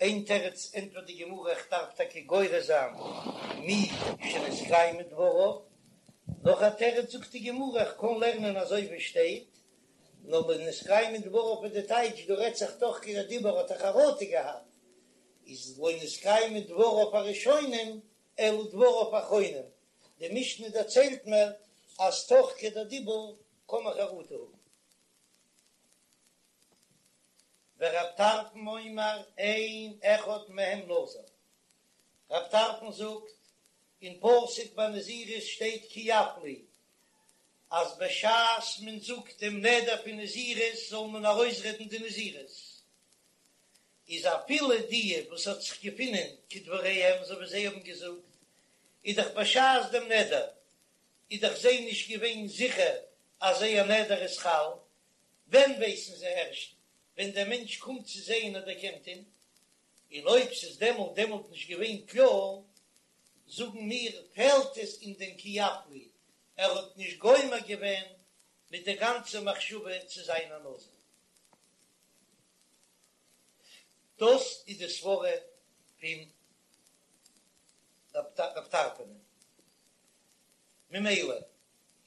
איין תירוץ ענטפערט די גמרא איך דארף טאקע גורס זיין מי שנתקיימו דבריו, נאך א תירוץ זאגט די גמרא איך קען לערנען אזוי ווי שטייט, נאר לא נתקיימו דבריו איז די טייטש דא רעדט זיך תוך כדי דיבור האט ער חרטה געהאט, איז לא נתקיימו דבריו הראשונים אלא דבריו האחרונים, די משנה דערציילט מיר אז תוך כדי דיבור קען מען חרטה האבן. ורב טרפון אומר אין אחד מהם נזיר, רב טרפון זאגט, אין פסוק ביי נזירות שטייט כי יפליא, אז בשעת מען זאגט דעם נדר פון נזירות זאל מען ארויסרעדן די נזירות, איז אפילו די וואס האט זיך געפונען כדבריהם אזוי ווי זיי האבן געזאגט, איז דאך בשעת דעם נדר איז דאך זיי נישט געווען זיכער אז זייער נדר איז חל, ווען ווייסן זיי ערשט? ווען דער מענטש קומט צו זיי און ער דערקענט אים, און אויב ס'איז דעמאלט דעמאלט נישט געווען קלאר, זאגן מיר, פעלט עס אין דעם כי יפליא, ער האט נישט גומר געווען מיט די גאנצע מחשבה צו זיין א נזיר. דאס איז די סברה פון רב טרפון. ממילא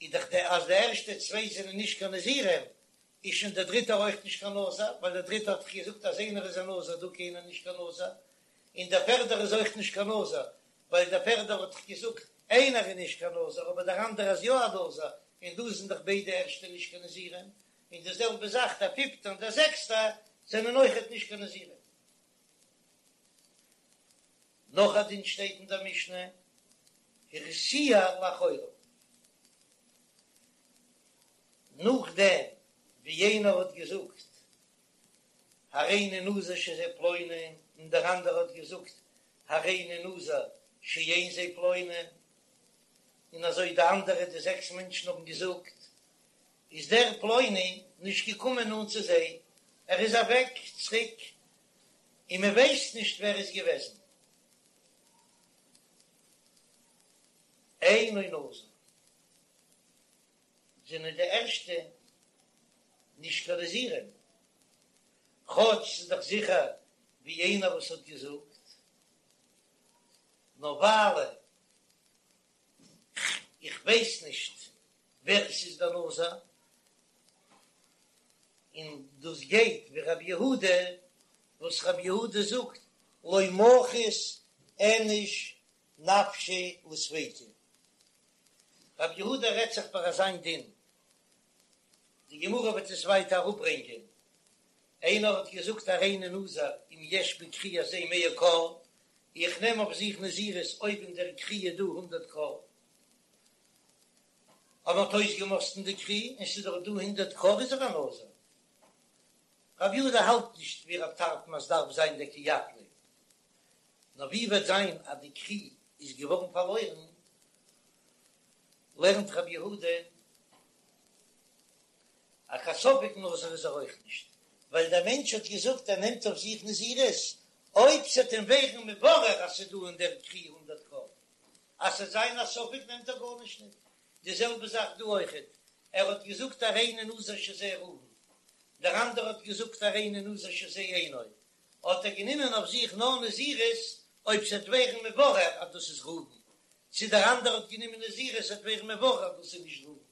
איז דאך די אז די ערשטע צוויי זענען נישט קיין נזירים, איז שוין דער דריטער אויך נישט קיין נזיר, ווייל דער דריטער האט דאך געזאגט אז איינער איז א נזיר דא קיינער נישט קיין נזיר, און דער פערדער איז אויך נישט קיין נזיר, ווייל דער פערדער האט דאך געזאגט איינער איז נישט קיין נזיר אבער דער אנדערער איז יא א נזיר, און דא זענען דאך ביידע ערשטע נישט קיין נזירים, און די זעלבע זאך דער פיפטער און דער זעקסטער זענען אויכעט נישט קיין נזירים. נאך א דין שטייט אין דער משנה, הרתיע לאחריו, נאכדעם ווי יענער האט געזאגט הריני נזיר שזה פלוני, און דער אנדערער האט געזאגט הריני נזיר שאין זה פלוני, און אזוי די אנדערע די זעקס מענטשן האבן געזאגט, איז דער פלוני נישט געקומען נאנט צו זיי, ער איז אוועק צוריק און מען ווייסט נישט ווער איז געוועזן. אינו נזיר זענען די ערשטע נישט קיין נזירים, כאטש ס'איז דאך זיכער ווי איינער וואס האט געזאגט, נאר ווייל איך ווייס נישט ווער עס איז דער נזיר, און דאס גייט ווי רבי יהודה, וואס רבי יהודה זאגט לא מחית איניש נפשיה לספיקא. רבי יהודה רעדט זיך ביי אזיין דין, די גמרא וועט עס ווייטער אראפברענגען, איינער האט געזאגט הריני נזיר אם יש בכרי הזה מאה כור, איך נעם אויף זיך נזירות אויב אין דער כרי איז דא הונדערט כור, אויב מ'האט אויסגעמאסטן די כרי און ס'איז דאך דא הונדערט כור איז ער א נזיר. רבי יהודה האלט נישט ווי רב טרפון אז דארף זיין דער כי יפליא, נאר ווי וועט זיין אז די כרי איז געווארן פארלוירן, לערנט רבי יהודה אז קיין ספק נזיר איז ער אויך נישט, ווייל דער מענטש האט געזאגט ער נעמט אויף זיך נזירות אויב ס'עט אים ווערן מבורר אז ס'איז דא אין דער כרי הונדערט כור, אז ס'עט זיין א ספק נעמט ער גארנישט ניט. די זעלבע זאך דא אויכעט, ער האט געזאגט הריני נזיר שזה ראובן, דער אנדערע האט געזאגט הריני נזיר שזה אינו, האט ער גענומען אויף זיך נאר נזירות אויב ס'עט ווערן מבורר אז דאס איז ראובן, צו דער אנדערע האט גענומען נזירות ס'עט ווערן מבורר אז דאס איז נישט ראובן.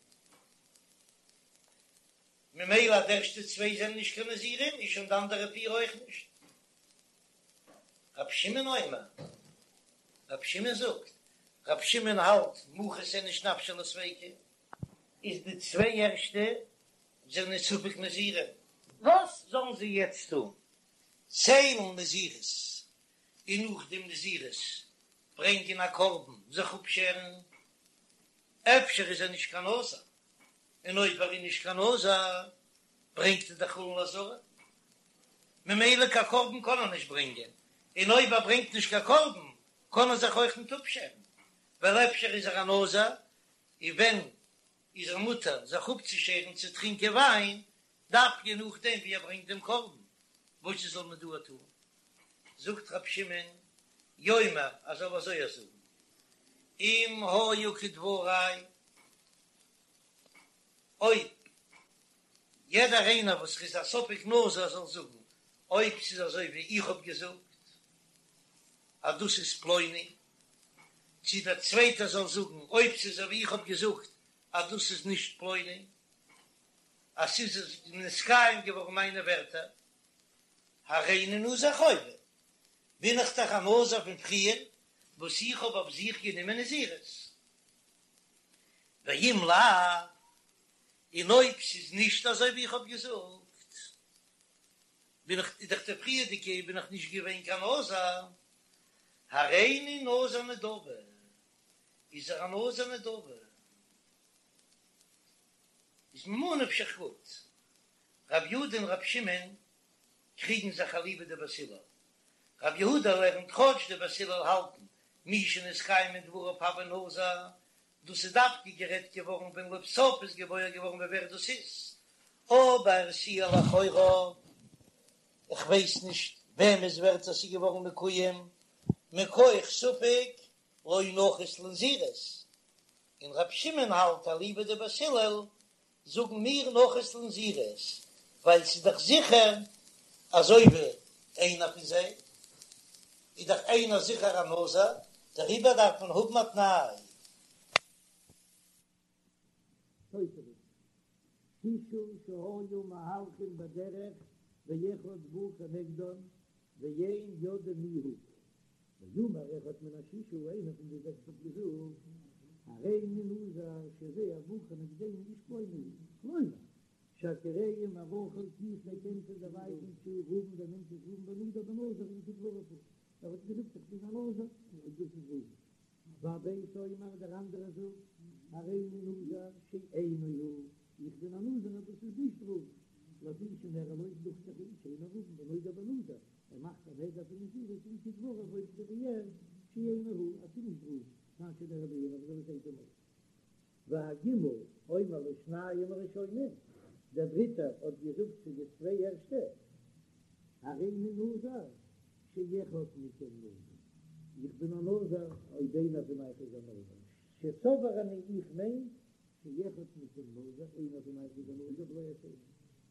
ממילא אז די ערשטע צוויי זענען נישט קיין נזירים איז שוין די אנדערע פיר אויך נישט. רבי שמעון אומר, רבי שמעון זאגט, רבי שמעון האלט מחית איניש נפשיה לספיקא, איז די צוויי ערשטע זענען ספק נזירים. וואס זאלן זיי יעצט טון? ציילן נזירות און נאך דעם נזירות ברענגען א קרבן זיך אפשערן? אפשר איז ער נישט קיין נזיר, און אויב ער איז נישט קיין נזיר ברענגט ער דאך חולין לעזרה, ממילא קיין קרבן קען ער נישט ברענגען, און אויב ער ברענגט נישט קיין קרבן קען ער זיך אויך נישט אפשערן, ווייל אפשר איז ער א נזיר, און ווען איז ער מותר זיך אפצושערן צו טרינקען וויין, דווקא נאכדעם ווי ער ברענגט דעם קרבן, וואס זאל מען דא טון? זאגט רבי שמעון, יאמר, ער זאל אזוי זאגן. אם היו כדברי, אויב יעדער איינער וואס איז א ספק נזיר זאל זאגן אויב ס'איז אזוי ווי איך האב געזאגט אז דאס איז פלוני, צו דער צווייטער זאל זאגן אויב ס'איז אזוי ווי איך האב געזאגט אז דאס איז נישט פלוני, אז ס'איז נתקיים געווארן מיינע ווערטער, הריני נזיר חובה, בין איך דאך א נזיר פון פריער וואס איך האב אויף זיך גענומען נזירות. ואם לאו, און אויב ס'איז נישט אזוי ווי איך האב געזאגט, בין איך איז דאך די פריערדיגע בין איך נישט געווען קיין נזיר, הריני נזיר נדבה, איז ער א נזיר נדבה, איז ממה נפשך גוט, רב יהודה און רב שמעון קריגן זיך אליבא דבית הלל, רב יהודה לערנט כאטש די בית הלל האלטן מי שנתקיימו דבריו הוי נזיר, דאס איז דווקא גערעדט געווארן ווען לבסוף איז געוואויר געווארן ווער דאס איז, אבער ס'איז לכאורה, איך ווייס נישט וועמענס ווערטער ס'איז געווארן מקוים, מכח ספק לא נחית לנזירות, און רב שמעון האלט אליבא דבית הלל זאגן מיר נחית לנזירות, ווייל ס'איז דאך זיכער אזוי ווי איינער פון זיי איז דאך איינער זיכער א נזיר, דעריבער דארף מען האבן א תנאי. תוספות, שישה שהיו מהלכים בדרך ואחד בא כנגדן ואין יודעים מי הוא, ואמר אחד מן השישה איינער פון די זעקס האט געזאגט, הריני נזיר שזה הבא כנגדנו איש פלוני הוא, כלומר, שהכירוהו מרחוק איך דערקען פון דערווייטנס שהוא ראובן דער מענטש איז ראובן ונדר בנזיר אם כדבריו הוא, ער האט געזאגט איך בין א נזיר און דאס איז ראובן. והב' אומר דער אנדערער זאגט, הריני נזיר שאינו הוא, איך בין א נזיר אז דאס איז נישט ראובן, לפי שנראה לו דוכט זיך אים שאינו ראובן ונודר בנזיר, ער מאכט א נדר פון נזירות אם כדבריו אויב ס'איז ווי ער שאינו הוא אז ס'איז נישט ראובן, כאשר נראה בעיניו אזוי ווי ס'זעט אים אויס. והג' אומר לשניים הראשונים, דער דריטער האט געזאגט צו די צוויי ערשטע, הריני נזיר שאחד מכם נזיר, איך בין א נזיר אויב איינער פון אייך איז א נזיר, שסבור אני איך מיין שאחד מכם נזיר, איינער פון אייך איז א נזיר ולא השני,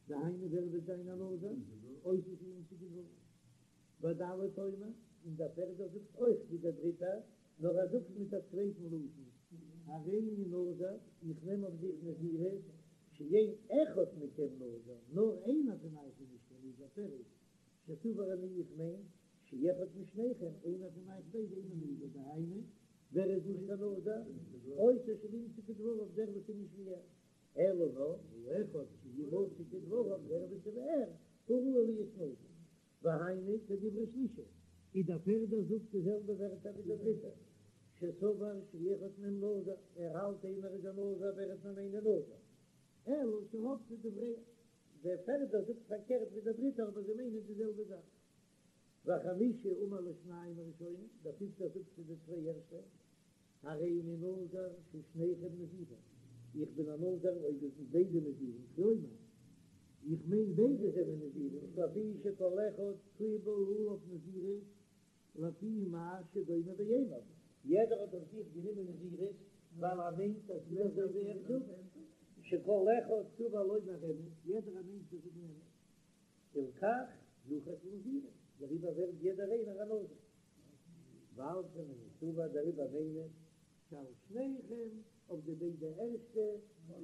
דהיינו ווער וועט זיין א נזיר, אותו שימצא כדבריו. והד' אומר, און דער פערדער זאגט אויך ווי דער דריטער, נאר ער זאגט מיט א צווייטן לשון, הריני נזיר, איך נעם אויף זיך נזירות, שאין אחד מכם נזיר, נאר איינער פון אייך איז נישט קיין נזיר, פירוש, שסבור אני איך מיין, שאחד משניכם, איינער פון אייך ביידע אינו נזיר, דהיינו, ווער איז נישט קיין נזיר? אותו שלא ימצא כדבריו, דער וואס איז נישט ווי ער. אלא נאר, האחד שימצא כדבריו, דער וואס איז ווי ער, הוא ראוי להיות נזיר. והיינו כדברי שלישי, איז דער פערדער זאגט די זעלבע ווערטער ווי דער דריטער, שסבר שאחד מהם נזיר, ער האלט איינער איז א נזיר ואחד מהם אינו נזיר, אלא שהפכו דבריהם, דער פערדער זאגט פארקערט ווי דער דריטער אבער זיי מיינען די זעלבע זאך. והחמישי אמר לשניים הראשונים, דער פיפטער זאגט צו די צוויי ערשטע, הריני נזיר ששניכם נזירים, איך בין א נזיר אויב איר זענט ביידע נזירים, כלומר, איך מיין ביידע זענען נזירים, לפי שכל אחד קיבל עליו נזירות לפי מה שדומה בעיניו, יעדער האט אויף זיך גענומען נזירות ווייל ער מיינט אז ס'איז אזוי ווי ער זאגט, שכל אחד סבור לומר אמת, יעדער מיינט צו זאגן אמת, הלכך נחית לנזירות, דעריבער ווערט יעדער איינער א נזיר. ועל כן אני סבור דעריבער מיין איך שעל שניכם אויף די ביידע ערשטע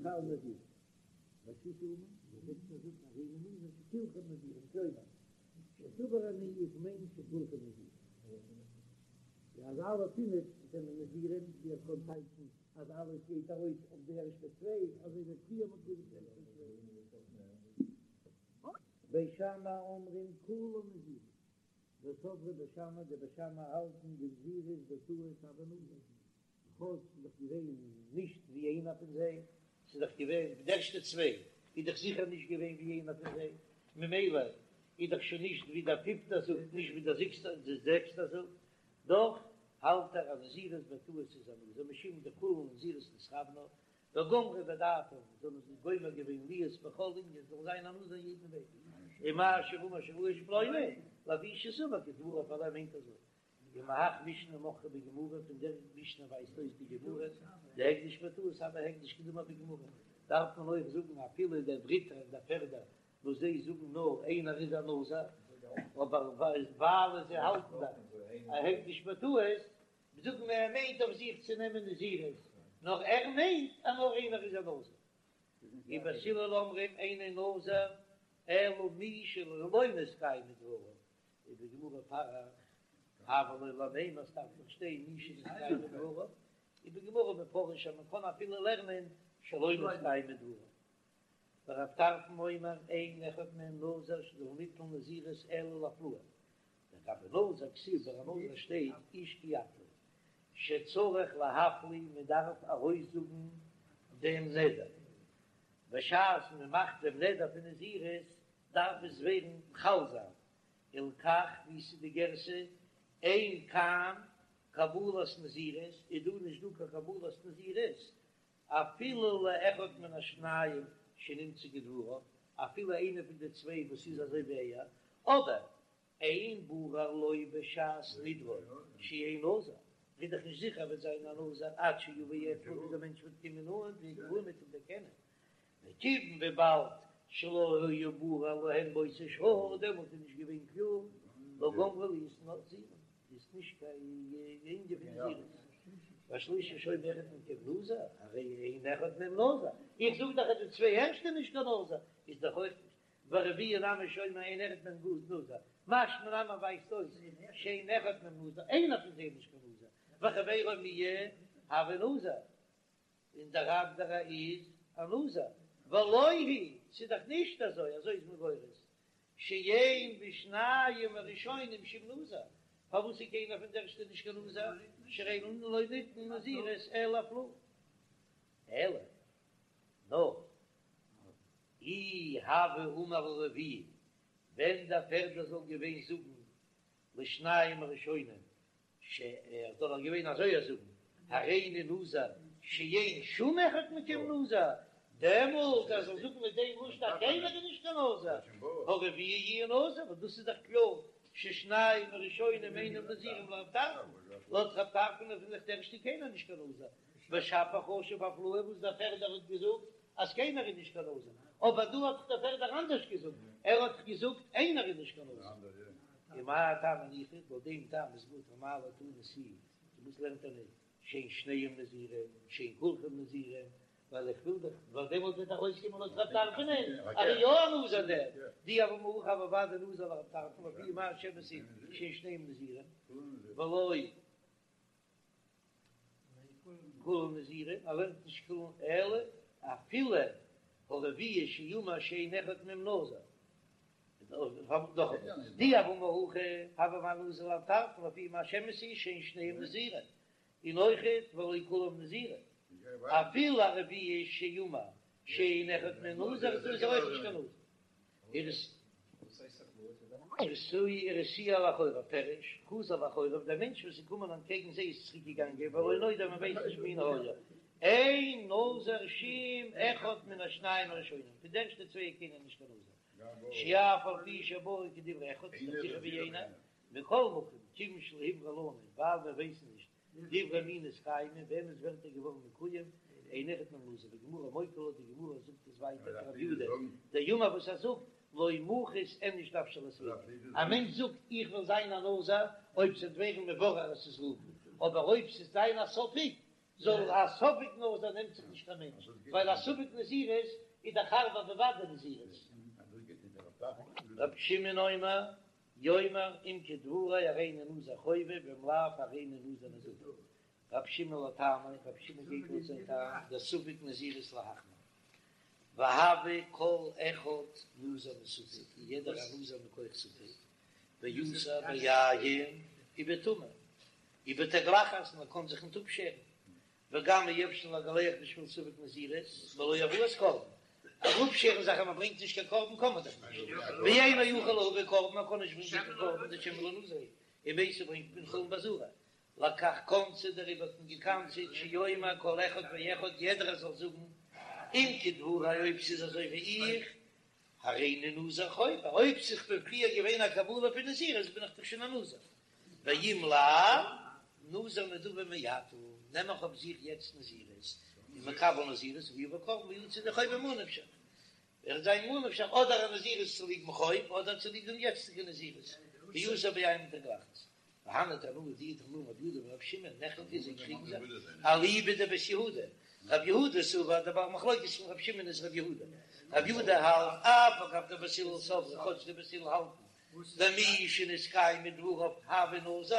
חל נזירות. והשישי אמר, דער זעקסטער זאגט הריני נזיר שכולכם נזירים, כלומר, שסבור אני איך מיין שכולכם נזירים. אז אלע פינף זענען נזירים, ווי ער קען טייטשן אז אלעס גייט ארויס אויף די ערשטע צוויי, אזוי ווי פריער מ'האט געזאגט די ערשטע צוויי. בית שמאי אומרים כולן נזירים, וסברי בית שמאי, די בית שמאי האלטן דנזירות בטעות הוי נזיר, כאטש ס'איז דאך געווען נישט ווי איינער פון זיי, ס'איז דאך געווען די ערשטע צוויי איז דאך זיכער נישט געווען ווי איינער פון זיי, ממילא איז דאך שוין נישט ווי דער פיפטער זאגט נישט ווי דער זעקסטער זאגט, דאך האלט ער אז נזירות בטעות איז א נזיר משום דכולן לנזירות נתכוונו, וגמרו בדעתם, זיי האבן זיך גומר געווען להיות בכל ענין, זאל זיין א נזיר אין יעדן וועג, ומה שאמר שהוא איש פלוני, לפי שסבור כדבריו ווייל ער מיינט אזוי. ומהך משנה מוכחא בגמרא, פון דער משנה ווייזט אויס די גמרא, דהקדש בטעות הוי הקדש כדאמר בגמרא, דארף מען אויך זאגן אפילו דער דריטער און דער פערדער וואס זיי זאגן נאר איינער איז א נזיר, אבער ווייל זיי האלטן דאך א הקדש בטעות, זאגן מיר ער מיינט אויף זיך צו נעמען נזירות, נאר ער מיינט אז נאר איינער איז א נזיר. ובית הלל אומרים אינו נזיר אלא מי שלא נתקיימו דבריו, ובגמרא פריך הוה ליה למימר ס'דארף דאך שטיין מי שנתקיימו דבריו, ובגמרא מפרש אז מען קען אפילו לערנען שלא נתקיימו דבריו. ורב טרפון אומר אין אחד מהם נזיר שלא ניתנה נזירות אלא להפלאה, לגבי נזיר כתיב ביי א נזיר שטייט איש כי יפליא שצריך להפליא מען דארף ארויסזאגן דעם נדר, בשעת מען מאכט דעם נדר פון נזירות דארף עס ווערן חל זיין, הלכך ווי ס'איז די גירסא אין כאן קבלת נזירות איז דא נישט דא קיין קבלת נזירות אפילו לאחד מן השניים שנמצא כדבריו, אפילו איינער פון די צוויי וואס איז אזוי ווי ער, אבער אין ברור לו בשעת נדרו שיהא נזיר, איז דאך נישט זיכער ער וועט זיין א נזיר עד שיבא אצלו ביז דער מענטש וועט קומען נאנט והכירוהו מ'וועט אים דערקענען, וכיוון וויבאלד שלא היה ברור להן באותה שעה, דעמאלט איז נישט געווען קלאר, לא גמרו להיות נזירים, איז נישט קיין ענין פון נזירות. והשלישי שאומר אחד מכם נזיר, הרי אין אחד מהם נזיר, איך זאג דאך אז די צוויי ערשטע נישט קיין נזיר, איז דאך אויך נישט, והרביעי נמי שאומר אין אחד מהם נזיר, משמע נמי ווייזט אויס שאין אחד מהם נזיר, איינער פון זיי איז נישט קיין נזיר, וחבירו מיהו הוי נזיר, און דער אנדערע איז א נזיר, ולא היא, ס'איז דאך נישט אזוי, אזוי איז מען גורס, שאין בשניים הראשונים שום נזיר, פארוואס איז קיינער פון די ערשטע נישט קיין נזיר, שהרי לא ניתנה נזירות אלא להפלאה, אלא נאר אי הוה אמר הרביעי, ווען דער פערדער זאל געווען זאגן לשניים הראשונים ש ער זאל דאך געווען אזוי א זאגן, הריני נזיר שאין שום אחד מכם נזיר, דעמאלט ער זאל זאגן מיט דעם לשון אז קיינער איז נישט קיין נזיר, הרביעי יהיה נזיר, וואס דאס איז דאך קלאר ששניים הראשונים אינם נזירים לרב טרפון, לויט רב טרפון איז דאך די ערשטע קיינער נישט קיין נזיר, ושפיר חשיב הפלאה וואס דער פערדער האט געזאגט אז קיינער איז נישט קיין נזיר, אבער דא האט דאך דער פערדער אנדערש געזאגט, ער האט דאך געזאגט איינער איז נישט קיין נזיר. ומהאי טעמא ניחא, לויט דעם טעם איז גוט אמאי לא תנא תו, וואס לערנט ער ניט שאין שניהם נזירים, שאין כולכם נזירים, ווייל איך וויל דאך, ווייל דעמאלט וועט ארויסקומען לויט רב טרפון אז ער איז יא א נזיר דער, דאי הוה אמר הכי הוה ודאי נזיר לרב טרפון לפי מה שאמת היא שאין שניהם נזירים, ולא כולם נזירים, ער לערנט נישט כולם אלא אפילו הרביעי שאמר שאין אחד מהם נזיר, דאי הוה אמר הכי הוה נזיר לרב טרפון לפי מה שאמת היא שאין שניהם נזירים, און אויכעט ולא כולם נזירים, אפילו הרביעי שאמר שאין אחד מהם נזיר איז ער אויך נישט קיין נזיר. הרתיעו לאחוריו פירוש, חזר לאחוריו, דער מענטש וואס איז געקומען אנטקעגן זיי איז צוריק געגאנגען, ולא נודע מען ווייסט נישט מי היה, אין נזיר שום אחד מן השניים הראשונים, פון די ערשטע צוויי איז קיינער נישט קיין נזיר, שאף על פי שברור כדברי אחד, ס'איז דאך זיכער ווי איינער, מכל מקום, כיוון שלא הוברר לנו, ווייל מיר ווייסן נישט דברי מי נתקיימו, וועמענס ווערטער געווארן מקוים, אין אחד מהם נזיר, וגמרא מוקי לה, די גמרא זאגט עס ווייטער כרב יודא, דאמר וואס ער זאגט, לא מחית איניש נפשיה לספיקא, א מענטש זאגט איך וויל זיין א נזיר, אויב ס'וועט ווערן מבורר אז ס'איז ראובן, אבער אויב ס'וועט זיין א ספק, זאל א ספק נזיר נעמט זיך נישט קיין מענטש, ווייל א ספק נזירות איז דאך הארבער ווי ודאי נזירות. רבי שמעון אומר, יאמר אם כדברי הריני נזיר חובה ואם לאו הריני נזיר נדבה. רבי שמעון לטעמיה, רבי שמעון גייט לויט זיין טעם, דספק נזירות להחמיר. והוי כל אחד נזיר מספק, און יעדער א נזיר מכח ספק, ואסור ביין ובטומאה, ובתגלחת, מען קען זיך ניט אפשערן, וגם אי אפשר לגלח בשביל ספק נזירות, בלא הבאת קרבן. אפשערן זיך אז מען ברענגט נישט קיין קרבן קען מען דאך נישט. ואינו יכול להביא קרבן, מען קען נישט ברענגען קיין קרבן דשמא לא נזיר הוא, ומתו ברענגט מען חולין בעזרה. לכך קנסו דעריבער האט מען געקנס'עט שיאמר כל אחד ואחד יעדער זאל זאגן אם כדברי אויב ס'איז אזוי ווי איך הריני נזיר חובה, אויב ס'איז פון פריער געווען א קבלה פון נזירות בין איך דאך שוין א נזיר. ואם לאו, נזיר נדבה מעתה, נעם איך אויף זיך יעצט נזירות, און מקבל נזירות, ויביא קרבן ויצא ידי חובה ממה נפשך. וועט זיין ממה נפשך אדער א נזירות צוליבן חוב אדער צוליב דעם יעצטיגע נזירות, ואסור ביין ובתגלחת. והני תנאי די תנאים רבי יהודה ורבי שמעון נחלקו זיי קריגן זיך אליבא דבית יהודה, רבי יהודה סבר דער בעל מחלוקת פון רבי שמעון איז רבי יהודה, רבי יהודה האלט אף על גב דבית הלל סברי כאטש די בית הלל האלטן דמי שנתקיימו דבריו הוי נזיר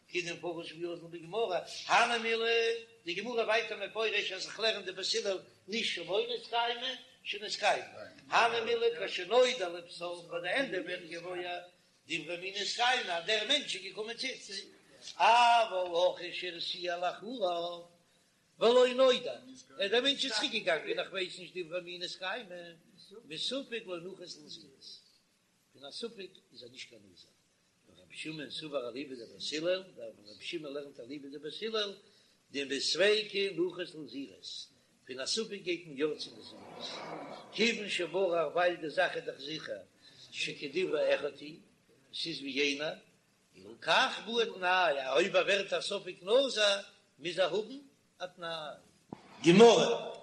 כדמפרש ואזיל בגמרא, הני מילי, די גמרא ווייטער מפרש אז איך לערן די בית הלל נישט שלא נתקיימו, שנתקיימו, הני מילי כשנודע לבסוף ביי די ענדע ווערט געוואויר דברי מי נתקיימו אז דער מענטש איז געקומען צו אונז, אבל הכא שהרתיע לאחריו ולא נודע, אז דער מענטש איז צוריק געגאנגען איך ווייס נישט דברי מי נתקיימו, מספק לא נחית לנזירות, פון א ספק איז ער נישט קיין נזיר. ורבי שמעון סבר אליבא דבית הלל, דער רבי שמעון לערנט אליבא דבית הלל, דמספיקא נחית לנזירות, פון א ספק גייט מען יא צו נזירות, כיוון שברור ווייל די זאך איז דאך זיכער שכדברי אחד הוא, עס איז ווי יענער, הלכך בעי תנאי, אויב ער ווערט א ספק נזיר מוז ער האבן א תנאי. גמרא.